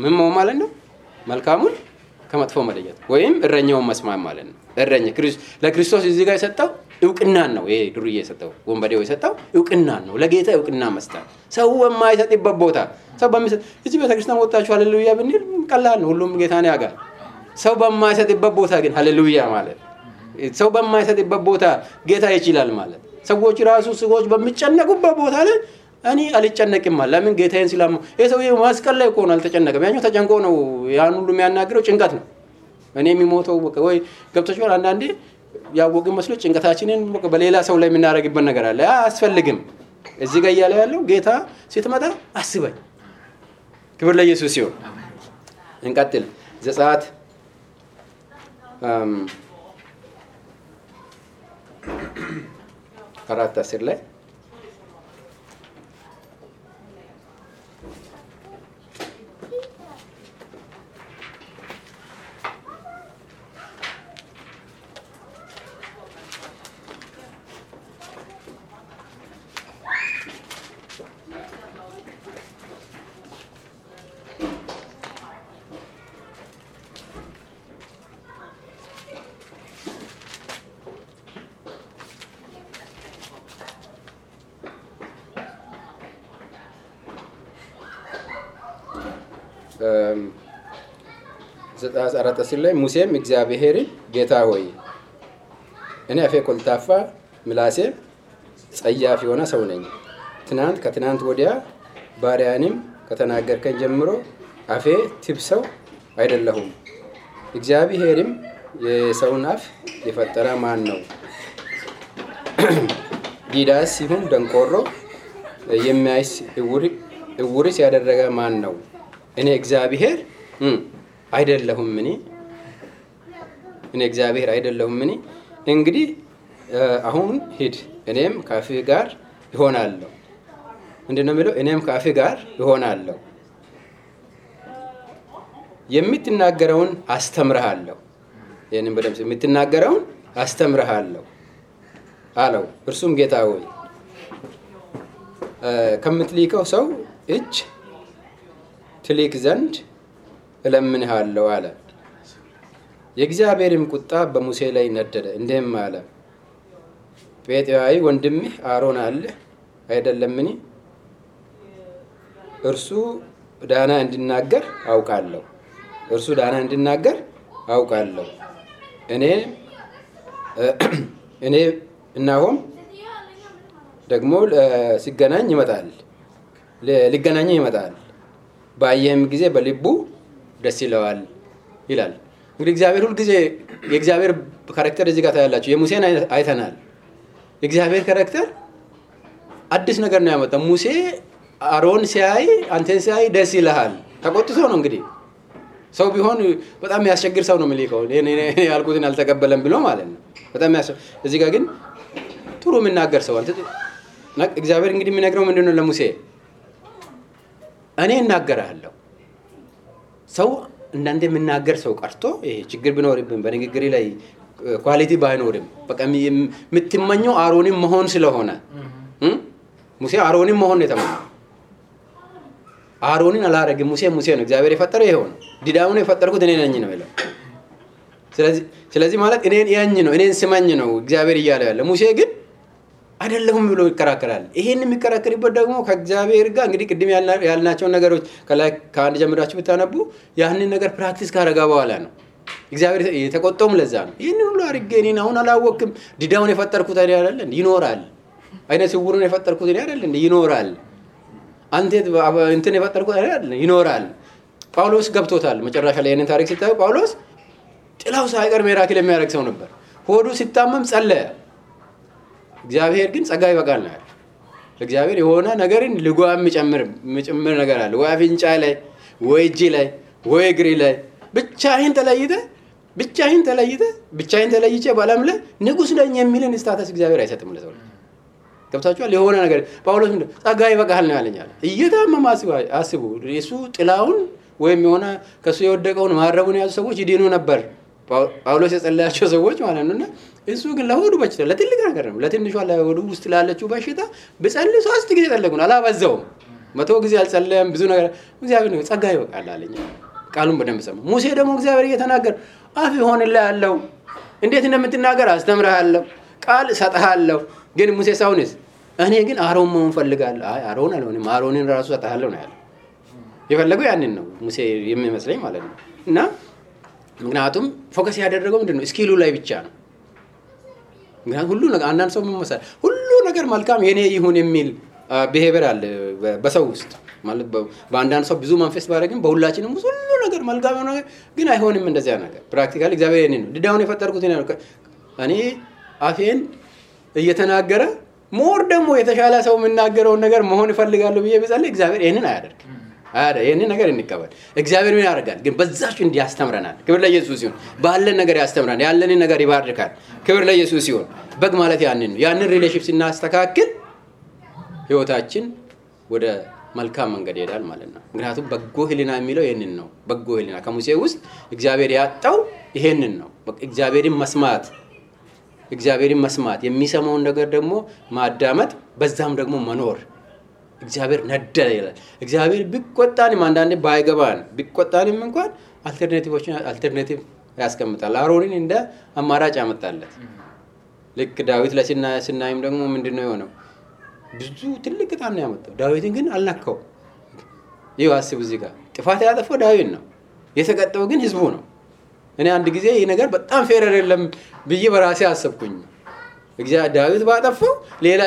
Speaker 1: ምን ማለት ነው? መልካሙን ከመጥፎ መለየት ወይም እረኛውን መስማት ማለት ነው። እረኛ ለክርስቶስ እዚህ ጋር የሰጠው እውቅናን ነው። ይሄ ዱርዬ የሰጠው ወንበዴው የሰጠው እውቅናን ነው። ለጌታ እውቅና መስጠት ሰው የማይሰጥበት ቦታ ሰው በሚሰጥ እዚህ ቤተክርስቲያን ወጣችሁ ሃሌሉያ ብንል ቀላል ነው፣ ሁሉም ጌታን ያውቃል። ሰው በማይሰጥበት ቦታ ግን ሃሌሉያ ማለት ሰው በማይሰጥበት ቦታ ጌታ ይችላል ማለት ሰዎች ሰዎች በሚጨነቁበት ቦታ ላይ እኔ አልጨነቅም ማለት ለምን ጌታዬን ሲላሙ የሰውዬው መስቀል ላይ ቆኖ አልተጨነቀም። ያኛው ተጨንቆ ነው ያን ሁሉ የሚያናግረው ጭንቀት ነው። እኔ የሚሞተው ወይ ገብቶሻል። አንዳንዴ ያወቅን መስሎ ጭንቀታችንን በሌላ ሰው ላይ የምናደርግበት ነገር አለ። አያስፈልግም። እዚህ ጋር እያለ ያለው ጌታ ስትመጣ አስበኝ። ክብር ለኢየሱስ ይሁን። እንቀጥል። ዘጸአት 4:10 ላይ ዘጸአት 4:10 ላይ ሙሴም እግዚአብሔርን ጌታ ሆይ እኔ አፌ ኮልታፋ ምላሴ ጸያፍ የሆነ ሰው ነኝ። ከትናንት ወዲያ ባሪያንም ከተናገርከኝ ጀምሮ አፌ ትብሰው አይደለሁም። እግዚአብሔርም የሰውን አፍ የፈጠረ ማን ነው? ዲዳስ ይሁን ደንቆሮ የሚያይስ እውርስ ያደረገ ማን ነው? እኔ እግዚአብሔር አይደለሁም? እኔ እግዚአብሔር አይደለሁም? እንግዲህ አሁን ሂድ፣ እኔም ከአፍህ ጋር እሆናለሁ። ምንድነው የሚለው? እኔም ከአፍህ ጋር እሆናለሁ፣ የምትናገረውን አስተምርሃለሁ። ይህንን በደምብ የምትናገረውን አስተምርሃለሁ አለው። እርሱም ጌታ ሆይ ከምትልከው ሰው እጅ ትልክ ዘንድ እለምንሃለሁ አለ። የእግዚአብሔርም ቁጣ በሙሴ ላይ ነደደ፣ እንዲህም አለ፣ ጴጥያዊ ወንድምህ አሮን አለ አይደለምን? እርሱ ዳና እንዲናገር አውቃለሁ። እኔ እናሆም ደግሞ ሊገናኝ ይመጣል፣ ባየህም ጊዜ በልቡ ደስ ይለዋል ይላል። እንግዲህ እግዚአብሔር ሁሉ ጊዜ የእግዚአብሔር ካራክተር እዚህ ጋር ታያላችሁ። የሙሴን አይተናል። የእግዚአብሔር ካራክተር አዲስ ነገር ነው ያመጣው። ሙሴ አሮን ሲያይ አንተን ሲያይ ደስ ይልሃል። ተቆጥቶ ነው እንግዲህ። ሰው ቢሆን በጣም የሚያስቸግር ሰው ነው የሚልከው። እኔ ያልኩትን አልተቀበለም ብሎ ማለት ነው። በጣም እዚህ ጋር ግን ጥሩ የሚናገር ሰው እግዚአብሔር እንግዲህ የሚነግረው ምንድነው ለሙሴ? እኔ እናገራለሁ። ሰው እንዳንተ የሚናገር ሰው ቀርቶ ይሄ ችግር ቢኖርብን በንግግር ላይ ኳሊቲ ባይኖርም በቃ የምትመኘው አሮንን መሆን ስለሆነ ሙሴ አሮንን መሆን የተመኘው አሮንን አላረግም። ሙሴ ነው። እግዚአብሔር የፈጠረው ይሄው ነው። ዲዳውን የፈጠርኩት እኔ ነኝ ነው ይላል። ስለዚህ ማለት እኔን ያኝ ነው፣ እኔን ስማኝ ነው እግዚአብሔር እያለ ያለ። ሙሴ ግን አይደለሁም ብሎ ይከራከራል። ይሄን የሚከራከርበት ደግሞ ከእግዚአብሔር ጋር እንግዲህ ቅድም ያልናቸውን ነገሮች ከላይ ከአንድ ጀምራችሁ ብታነቡ ያንን ነገር ፕራክቲስ ካረጋ በኋላ ነው እግዚአብሔር የተቆጣውም። ለዛ ነው ይሄን ሁሉ አድርጌ እኔን አሁን አላወቅም። ዲዳውን የፈጠርኩት አይደል እንዴ? ይኖራል። አይነ ስውሩን የፈጠርኩት አይደል እንዴ? ይኖራል። አንተ እንትን የፈጠርኩት አይደል? ይኖራል። ጳውሎስ ገብቶታል። መጨረሻ ላይ ይሄንን ታሪክ ሲታዩ ጳውሎስ ጥላው ሳይቀር ሚራክል የሚያደርግ ሰው ነበር። ሆዱ ሲታመም ጸለየ። እግዚአብሔር ግን ጸጋ ይበቃል ነው ያለው። እግዚአብሔር የሆነ ነገርን ልጓም የሚጨምር ነገር አለ። ወይ አፍንጫ ላይ ወይ እጅ ላይ ወይ እግሪ ላይ ብቻህን ተለይቼ በዓለም ላይ ንጉስ ነኝ የሚልን ስታተስ እግዚአብሔር አይሰጥም ለሰው። ገብታችኋል? የሆነ ነገር ጳውሎስ ምንድነው ጸጋ ይበቃል ነው ያለኛል። እየታመመ አስቡ። እሱ ጥላውን ወይም የሆነ ከሱ የወደቀውን ማረቡን ያዙ ሰዎች ይድኑ ነበር። ጳውሎስ የጸለያቸው ሰዎች ማለት ነውና እሱ ግን ለሆዱ በሽታ ለትልቅ ነገር ነው። ለትንሿ ለሆዱ ውስጥ ላለችው በሽታ በጸልይ 3 ጊዜ ጸለይኩና አላበዛውም። 100 ጊዜ አልጸለየም። ብዙ ነገር እግዚአብሔር ነው ጸጋ ይበቃል አለኝ። ቃሉን በደንብ ሰማ። ሙሴ ደግሞ እግዚአብሔር እየተናገረ አፍ ይሆንልህ ያለው እንዴት እንደምትናገር አስተምርሃለሁ፣ ቃል ሰጥሃለሁ። ግን ሙሴ ሳውንስ እኔ ግን አሮን መሆን ፈልጋለሁ። አይ አሮን አልሆንም፣ አሮንን ራሱ ሰጥሃለሁ ነው ያለው። የፈለገው ያንን ነው ሙሴ የሚመስለኝ ማለት ነው። እና ምክንያቱም ፎከስ ያደረገው ምንድነው ስኪሉ ላይ ብቻ ነው። ምክንያቱም ሁሉ ነገር አንዳንድ ሰው መመሰል ሁሉ ነገር መልካም የኔ ይሁን የሚል ቢሄቪየር አለ በሰው ውስጥ ማለት በአንዳንድ ሰው ብዙ መንፈስ ባደረግም በሁላችንም ውስጥ ሁሉ ነገር መልካም ነው፣ ግን አይሆንም እንደዚያ ነገር። ፕራክቲካሊ እግዚአብሔር የኔ ነው ዲዳውን የፈጠርኩት እኔ አፌን እየተናገረ ሞር ደግሞ የተሻለ ሰው የምናገረውን ነገር መሆን እፈልጋለሁ ብዬ ብጸልይ እግዚአብሔር ይሄንን አያደርግም። ይሄንን ነገር እንቀበል። እግዚአብሔር ምን ያደርጋል ግን በዛች እንዲያስተምረናል። ክብር ለኢየሱስ ይሁን። ባለን ነገር ያስተምረናል፣ ያለንን ነገር ይባርካል። ክብር ለኢየሱስ ይሁን። በግ ማለት ያንን ነው። ያንን ሪሌሽንሺፕ ስናስተካክል ህይወታችን ወደ መልካም መንገድ ይሄዳል ማለት ነው። ምክንያቱም በጎ ህሊና የሚለው ይሄንን ነው። በጎ ህሊና ከሙሴ ውስጥ እግዚአብሔር ያጣው ይሄንን ነው። እግዚአብሔርን መስማት የሚሰማውን ነገር ደግሞ ማዳመጥ፣ በዛም ደግሞ መኖር። እግዚአብሔር ነደደ ይላል። እግዚአብሔር ቢቆጣንም አንዳንዴ ባይገባን ቢቆጣንም እንኳን አልተርናቲቭ ያስቀምጣል። አሮንን እንደ አማራጭ ያመጣለት። ልክ ዳዊት ለስናይም ደግሞ ምንድነው የሆነው? ብዙ ትልቅ ቅጣት ነው ያመጣው። ዳዊትን ግን አልነካው። ይኸው አስቡ፣ እዚህ ጋር ጥፋት ያጠፋው ዳዊት ነው፣ የተቀጣው ግን ህዝቡ ነው። እኔ አንድ ጊዜ ይሄ ነገር በጣም ፌር አይደለም ብዬ በራሴ አሰብኩኝ። እግዚአብሔር ዳዊት ባጠፋው ሌላ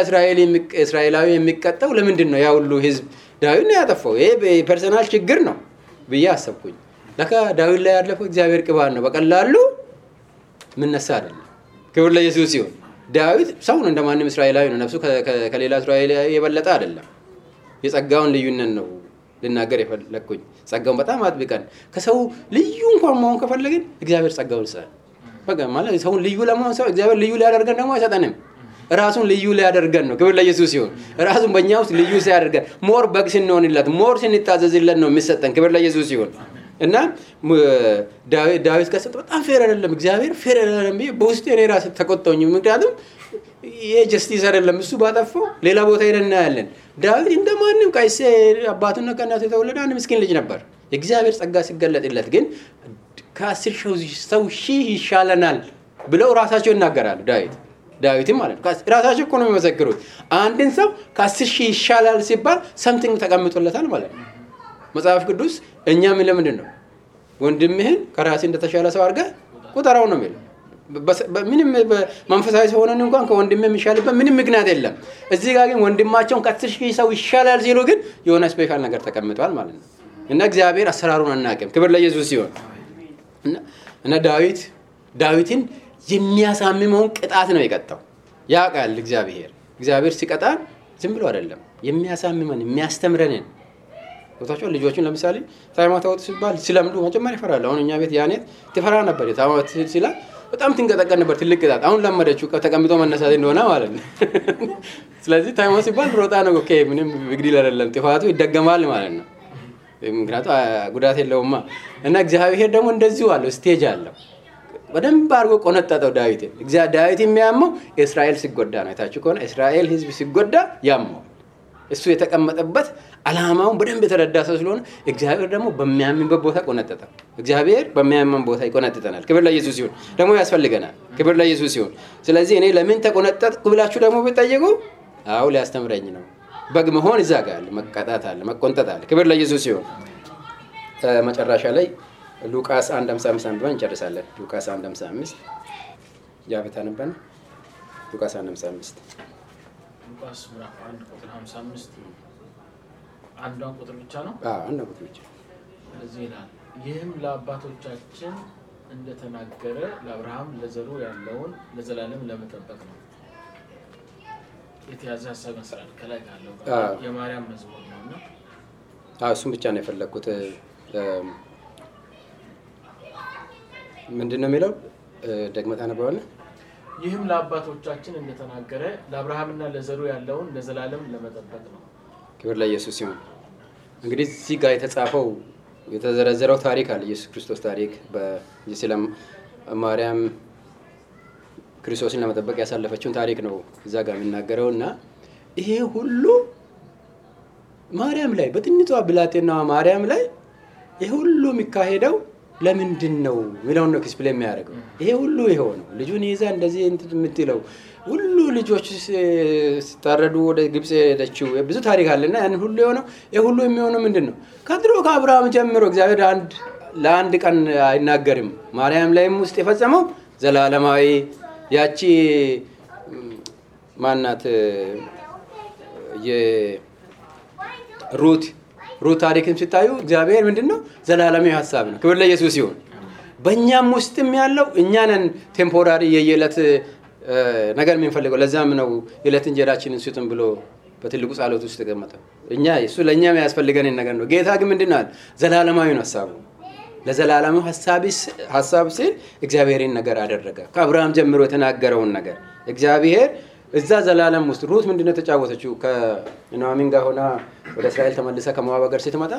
Speaker 1: እስራኤላዊ የሚቀጣው ለምንድን ነው? ያ ሁሉ ህዝብ ዳዊት ነው ያጠፋው። ይሄ ፐርሰናል ችግር ነው ብዬ አሰብኩኝ። ለካ ዳዊት ላይ ያለፈው እግዚአብሔር ቅባት ነው፣ በቀላሉ ምንነሳ አይደለም። ክብር ለኢየሱስ ይሁን። ዳዊት ሰው ነው፣ እንደማንም እስራኤላዊ ነው። ነፍሱ ከሌላ እስራኤላዊ የበለጠ አይደለም። የጸጋውን ልዩነት ነው ልናገር የፈለኩኝ። ጸጋውን በጣም አጥብቀን ከሰው ልዩ እንኳን መሆን ከፈለግን እግዚአብሔር ጸጋውን ይሰጣል። በቃ ማለት ሰውን ልዩ ለመሆን ሰው እግዚአብሔር ልዩ ሊያደርገን ደግሞ አይሰጠንም። ራሱን ልዩ ሊያደርገን ነው። ክብር ለኢየሱስ ይሁን። ራሱን በእኛ ውስጥ ልዩ ሲያደርገን ሞር በግ ስንሆንለት ሞር ስንታዘዝለት ነው የሚሰጠን። ክብር ለኢየሱስ ይሁን። እና ዳዊት ከሰጠ በጣም ፌር አይደለም፣ እግዚአብሔር ፌር አይደለም ብዬ በውስጤ እኔ ራሴ ተቆጣሁኝ። ምክንያቱም ይሄ ጀስቲስ አይደለም። እሱ ባጠፋው ሌላ ቦታ ሄደን እናያለን። ዳዊት እንደማንም ከይሴ አባቱና ከእናቱ የተወለደ አንድ ምስኪን ልጅ ነበር። የእግዚአብሔር ጸጋ ሲገለጥለት ግን ከ10 ሰው ሺህ ይሻለናል ብለው ራሳቸው ይናገራሉ። ዳዊትም ማለት ነው ራሳቸው እኮ ነው የሚመሰክሩት። አንድን ሰው ከ10 ሺህ ይሻላል ሲባል ሰምቲንግ ተቀምጦለታል ማለት ነው። መጽሐፍ ቅዱስ እኛ ምን ለምንድን ነው ወንድምህን ከራስህ እንደተሻለ ሰው አድርገህ ቁጠራው ነው የሚለው። ምንም መንፈሳዊ ሆነን እንኳን ከወንድምህ የሚሻልበት ምንም ምክንያት የለም። እዚህ ጋር ግን ወንድማቸውን ከ10 ሺህ ሰው ይሻላል ሲሉ ግን የሆነ ስፔሻል ነገር ተቀምጧል ማለት ነው። እና እግዚአብሔር አሰራሩን አናውቅም። ክብር ለኢየሱስ ይሁን። እና ዳዊትን የሚያሳምመውን ቅጣት ነው የቀጣው። ያውቃል እግዚአብሔር ሲቀጣን ዝም ብሎ አይደለም የሚያሳምመን የሚያስተምረንን። ወጣቸው ልጆችን ለምሳሌ ታይማት አውጥ ሲባል ሲለምዱ መጀመሪያ ይፈራል። አሁን እኛ ቤት ያኔት ትፈራ ነበር። ታይማት ሲላ በጣም ትንቀጠቀጥ ነበር። ትልቅ ቅጣት አሁን ለመደችው ተቀምጦ መነሳት እንደሆነ ማለት ነው። ስለዚህ ታይማት ሲባል ሮጣ ነው። ኦኬ ምንም ግዲል አይደለም፣ ጥፋቱ ይደገማል ማለት ነው። ምክንያቱም ጉዳት የለውማ። እና እግዚአብሔር ደግሞ እንደዚሁ አለው፣ ስቴጅ አለው። በደንብ አድርጎ ቆነጠጠው ዳዊትን። ዳዊት የሚያመው እስራኤል ሲጎዳ ነው። የታችሁ ከሆነ እስራኤል ህዝብ ሲጎዳ ያመው እሱ የተቀመጠበት ዓላማውን በደንብ የተረዳ ሰው ስለሆነ እግዚአብሔር ደግሞ በሚያምንበት ቦታ ቆነጠጠው። እግዚአብሔር በሚያምን ቦታ ይቆነጥጠናል። ክብር ለኢየሱስ ይሁን። ደግሞ ያስፈልገናል። ክብር ለኢየሱስ ይሁን። ስለዚህ እኔ ለምን ተቆነጠጥኩ ብላችሁ ደግሞ ብትጠይቁ አው ሊያስተምረኝ ነው። በግ መሆን እዛ ጋር አለ፣ መቀጣት አለ፣ መቆንጠጥ አለ። ክብር ለኢየሱስ ይሁን። መጨረሻ ላይ ሉቃስ 1:55 አንብበን እንጨርሳለን። ሉቃስ 1:55 ያበታ ነበር። ሉቃስ 1:55
Speaker 2: ሉቃስ ምዕራፍ 1:55 አንዷን ቁጥር ብቻ ነው።
Speaker 1: አንዷን ቁጥር ብቻ
Speaker 2: እዚህ ይላል፣ ይህም ለአባቶቻችን እንደተናገረ ለአብርሃም ለዘሩ ያለውን ለዘላለም ለመጠበቅ ነው። የተያዘ ሐሳብ መስራል ከላይ ካለው የማርያም መዝሙር ነውና
Speaker 1: እሱም ብቻ ነው የፈለኩት። ምንድነው የሚለው? ደግመህ ታነበዋለህ።
Speaker 2: ይህም ለአባቶቻችን እንደተናገረ ለአብርሃምና ለዘሩ ያለውን ለዘላለም ለመጠበቅ ነው።
Speaker 1: ክብር ለኢየሱስ ይሁን። እንግዲህ እዚህ ጋር የተጻፈው የተዘረዘረው ታሪክ አለ። ኢየሱስ ክርስቶስ ታሪክ በኢየሱስ ማርያም ክርስቶስን ለመጠበቅ ያሳለፈችውን ታሪክ ነው እዛ ጋር የሚናገረውና ይሄ ሁሉ ማርያም ላይ በትንሿ ብላቴናዋ ማርያም ላይ ይሄ ሁሉ የሚካሄደው ለምንድን ነው የሚለውን ነው ኤክስፕሌን የሚያደርገው። ይሄ ሁሉ የሆነው ልጁን ይዛ እንደዚህ የምትለው ሁሉ ልጆች ሲታረዱ ወደ ግብጽ ሄደችው ብዙ ታሪክ አለና ያን ሁሉ የሆነው ይሄ ሁሉ የሚሆነው ምንድነው? ከድሮ ከአብርሃም ጀምሮ እግዚአብሔር ለአንድ ቀን አይናገርም። ማርያም ላይም ውስጥ የፈጸመው ዘላለማዊ ያቺ ማናት የሩት ታሪክን ሲታዩ እግዚአብሔር ምንድነው? ዘላለማዊ ሐሳብ ነው። ክብር ለኢየሱስ ይሁን። በእኛም ውስጥም ያለው እኛንን ቴምፖራሪ የየለት ነገር የምንፈልገው። ለዛም ነው የዕለት እንጀራችንን ስጡን ብሎ በትልቁ ጸሎት ውስጥ ተቀመጠው። እኛ እሱ ለኛ የሚያስፈልገን ነገር ነው። ጌታ ግን ምንድነው ዘላለማዊ ነው ሐሳቡ። ለዘላለማዊ ሐሳብ ሲል እግዚአብሔርን ነገር አደረገ። ከአብርሃም ጀምሮ የተናገረውን ነገር እግዚአብሔር እዛ ዘላለም ውስጥ ሩት ምንድነው ተጫወተችው? ከኑኃሚን ጋር ሆና ወደ እስራኤል ተመልሳ ከሞዓብ ሀገር ስትመጣ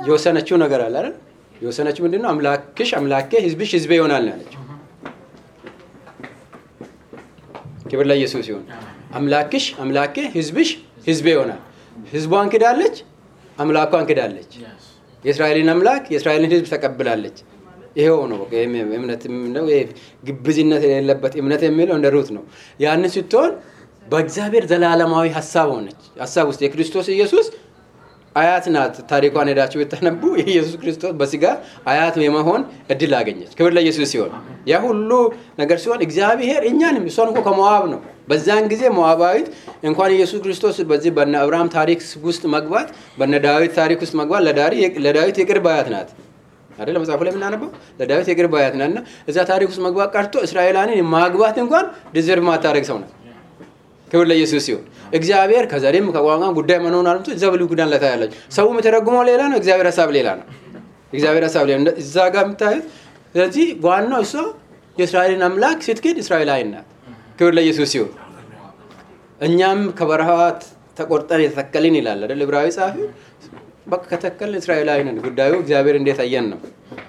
Speaker 1: የወሰነችው ነገር አለ አይደል? የወሰነችው ምንድነው? አምላክሽ አምላኬ ሕዝብሽ ሕዝቤ ይሆናል ነው ያለችው። ክብር ለኢየሱስ ይሁን። አምላክሽ አምላኬ ሕዝብሽ ሕዝቤ ይሆናል። ሕዝቧን ክዳለች፣ አምላኳን ክዳለች። የእስራኤልን አምላክ የእስራኤልን ሕዝብ ተቀብላለች። ይሄው ነው እምነት ነው። ግብዝነት የሌለበት እምነት የሚለው እንደ ሩት ነው። ያንን ስትሆን በእግዚአብሔር ዘላለማዊ ሐሳብ ሆነች። ሐሳብ ውስጥ የክርስቶስ ኢየሱስ አያት ናት። ታሪኳን ሄዳችሁ ብታነቡ የኢየሱስ ክርስቶስ በስጋ አያት የመሆን እድል አገኘች። ክብር ለኢየሱስ ሲሆን ያ ሁሉ ነገር ሲሆን እግዚአብሔር እኛንም እሷን እኮ ከሞዓብ ነው። በዛን ጊዜ ሞዓባዊት እንኳን ኢየሱስ ክርስቶስ በዚህ በነ አብርሃም ታሪክ ውስጥ መግባት በነ ዳዊት ታሪክ ውስጥ መግባት ለዳዊት የቅርብ አያት ናት አይደል? መጽሐፉ ላይ የምናነበው ለዳዊት የቅርብ አያት ናትና እዛ ታሪክ ውስጥ መግባት ቀርቶ እስራኤላንን ማግባት እንኳን ዲዘርቭ ማታረግ ሰው ናት። ክብር ለኢየሱስ ይሁን። እግዚአብሔር ከዛሬም ከቋንቋ ጉዳይ መኖር አልምቶ እዛ ብሉይ ኪዳን ላይ ታያለች። ሰው የሚተረጉመው ሌላ ነው፣ እግዚአብሔር ሐሳብ ሌላ ነው። እግዚአብሔር ሐሳብ ሌላ ነው እዛ ጋር የምታዩት። ስለዚህ ዋናው እሷ የእስራኤልን አምላክ ስትክድ እስራኤላዊ ናት። ክብር ለኢየሱስ ይሁን። እኛም ከበረሃት ተቆርጠን የተተከልን ይላል አይደል ዕብራዊ ጸሐፊ። በቃ ከተከልን እስራኤላዊ ነን። ጉዳዩ እግዚአብሔር እንዴት አየን ነው።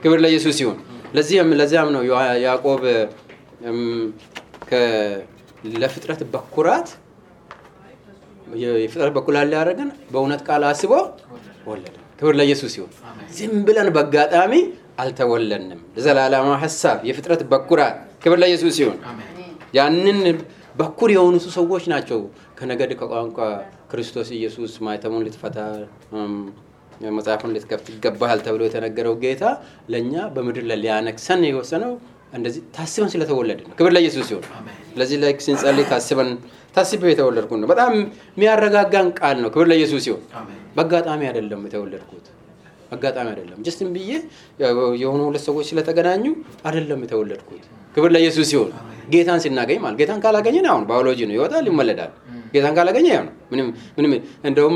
Speaker 1: ክብር ለኢየሱስ ይሁን። ለዚያም ነው ያዕቆብ ለፍጥረት በኩራት የፍጥረት በኩራት ያደረገን በእውነት ቃል አስቦ ወለደ። ክብር ለኢየሱስ ይሁን። ዝም ብለን በአጋጣሚ አልተወለድንም። ለዘላለማዊ ሐሳብ የፍጥረት በኩራት። ክብር ለኢየሱስ ይሁን። ያንን በኩር የሆኑ ሰዎች ናቸው ከነገድ ከቋንቋ ክርስቶስ ኢየሱስ ማይተሙን ልትፈታ መጽሐፉን ልትከፍት ይገባሃል ተብሎ የተነገረው ጌታ ለኛ በምድር ላይ ሊያነግሰን የወሰነው እንደዚህ ታስበን ስለተወለድን ነው። ክብር ለኢየሱስ ይሁን። ስለዚህ ላይ ስንጸልይ ታስበው የተወለድኩት ነው። በጣም የሚያረጋጋን ቃል ነው። ክብር ለኢየሱስ ይሁን። በአጋጣሚ አይደለም የተወለድኩት፣ አጋጣሚ አይደለም። ጀስትም ብዬ የሆኑ ሁለት ሰዎች ስለተገናኙ አይደለም የተወለድኩት። ክብር ለኢየሱስ ይሁን። ጌታን ስናገኝ ማለት ጌታን ካላገኘን አሁን ባዮሎጂ ነው ይወጣል ይመለዳል። ጌታን ካላገኘ ያው ነው ምንም እንደውም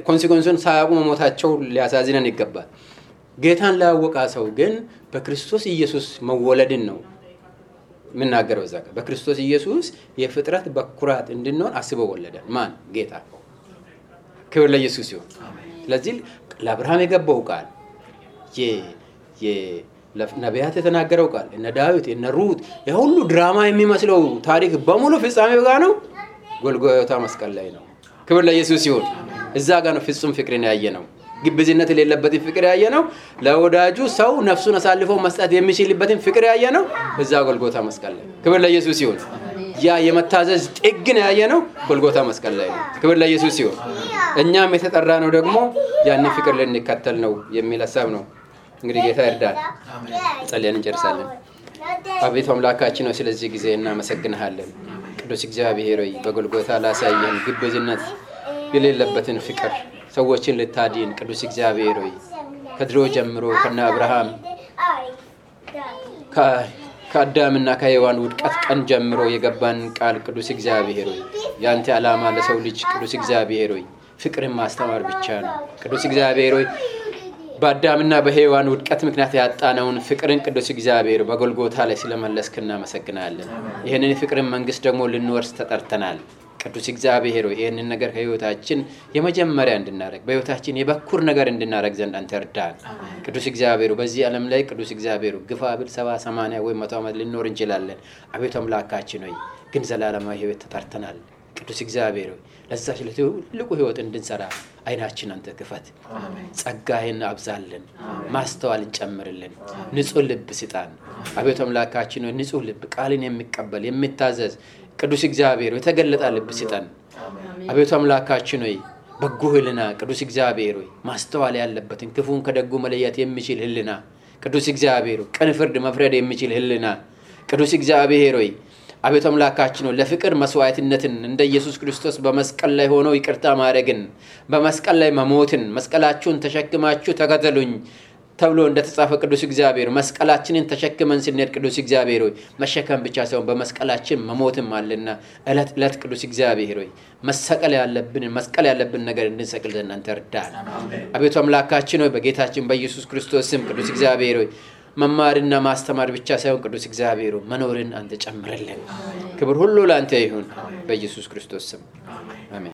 Speaker 1: ኮንሲኩዌንሱን ሳያውቁ መሞታቸው ሊያሳዝነን ይገባል። ጌታን ላያወቀ ሰው ግን በክርስቶስ ኢየሱስ መወለድን ነው የምናገረው። እዛ ጋር በክርስቶስ ኢየሱስ የፍጥረት በኩራት እንድንሆን አስበው ወለደን። ማን? ጌታ። ክብር ለኢየሱስ ይሁን። ስለዚህ ለአብርሃም የገባው ቃል ነቢያት የተናገረው ቃል እነ ዳዊት እነ ሩት የሁሉ ድራማ የሚመስለው ታሪክ በሙሉ ፍጻሜው ጋር ነው፣ ጎልጎታ መስቀል ላይ ነው። ክብር ለኢየሱስ ይሁን። እዛ ጋር ነው ፍጹም ፍቅርን ያየ ነው፣ ግብዝነት የሌለበትን ፍቅር ያየ ነው። ለወዳጁ ሰው ነፍሱን አሳልፎ መስጠት የሚችልበትን ፍቅር ያየ ነው እዛ ጎልጎታ መስቀል ላይ። ክብር ለኢየሱስ ይሁን። ያ የመታዘዝ ጥግን ያየ ነው ጎልጎታ መስቀል ላይ ነው። ክብር ለኢየሱስ ይሁን። እኛም የተጠራ ነው ደግሞ ያንን ፍቅር ልንከተል ነው የሚል ሐሳብ ነው። እንግዲህ ጌታ ይርዳል። ጸልየን እንጨርሳለን። አቤቱ አምላካችን ነው ስለዚህ ጊዜ እናመሰግንሃለን። ቅዱስ እግዚአብሔር ሆይ በጎልጎታ ላሳየን ግብዝነት የሌለበትን ፍቅር ሰዎችን ልታድን ቅዱስ እግዚአብሔር ሆይ ከድሮ ጀምሮ ከነ አብርሃም ከአዳምና ከሔዋን ውድቀት ቀን ጀምሮ የገባን ቃል ቅዱስ እግዚአብሔር ሆይ ያንተ ዓላማ ለሰው ልጅ ቅዱስ እግዚአብሔር ሆይ ፍቅርን ማስተማር ብቻ ነው። ቅዱስ እግዚአብሔር ሆይ በአዳምና በሔዋን ውድቀት ምክንያት ያጣነውን ፍቅርን ቅዱስ እግዚአብሔር በጎልጎታ ላይ ስለመለስክ እናመሰግናለን። ይህንን ፍቅርን መንግስት ደግሞ ልንወርስ ተጠርተናል። ቅዱስ እግዚአብሔር ሆይ ይህንን ነገር ከህይወታችን የመጀመሪያ እንድናረግ በህይወታችን የበኩር ነገር እንድናረግ ዘንድ አንተ እርዳን። ቅዱስ እግዚአብሔር በዚህ ዓለም ላይ ቅዱስ እግዚአብሔር ግፋ ብል 70 80 ወይ 100 ዓመት ልንኖር እንችላለን። አቤቱ አምላካችን ሆይ ግን ዘላለማዊ ህይወት ተጠርተናል። ቅዱስ እግዚአብሔር ሆይ ለዛች ለትልቁ ህይወት እንድንሰራ አይናችን አንተ ክፈት። ጸጋህን አብዛልን፣ ማስተዋልን ጨምርልን፣ ንጹህ ልብ ስጣን። አቤቱ አምላካችን ሆይ ንጹህ ልብ ቃልን የሚቀበል የሚታዘዝ ቅዱስ እግዚአብሔር የተገለጠ ልብ ስጠን። አቤቱ አምላካችን ሆይ በጎ ህልና ቅዱስ እግዚአብሔር ሆይ ማስተዋል ያለበትን ክፉን ከደጉ መለየት የሚችል ህልና ቅዱስ እግዚአብሔር ቅን ፍርድ መፍረድ የሚችል ህልና ቅዱስ እግዚአብሔር ሆይ አቤቱ አምላካችን ሆይ ለፍቅር መስዋዕትነትን እንደ ኢየሱስ ክርስቶስ በመስቀል ላይ ሆኖ ይቅርታ ማድረግን በመስቀል ላይ መሞትን መስቀላችሁን ተሸክማችሁ ተከተሉኝ ተብሎ እንደተጻፈ ቅዱስ እግዚአብሔር መስቀላችንን ተሸክመን ስንሄድ ቅዱስ እግዚአብሔር ሆይ መሸከም ብቻ ሳይሆን በመስቀላችን መሞትም አለና እለት ቅዱስ እግዚአብሔር ሆይ መስቀል ያለብን ነገር እንድንሰቅል ዘንድ እርዳን። አቤቱ አምላካችን ሆይ በጌታችን በኢየሱስ ክርስቶስ ስም ቅዱስ እግዚአብሔር ሆይ መማርና ማስተማር ብቻ ሳይሆን ቅዱስ እግዚአብሔር ሆይ መኖርን አንተ ጨምረልን። ክብር ሁሉ ላንተ ይሁን በኢየሱስ ክርስቶስ ስም አሜን።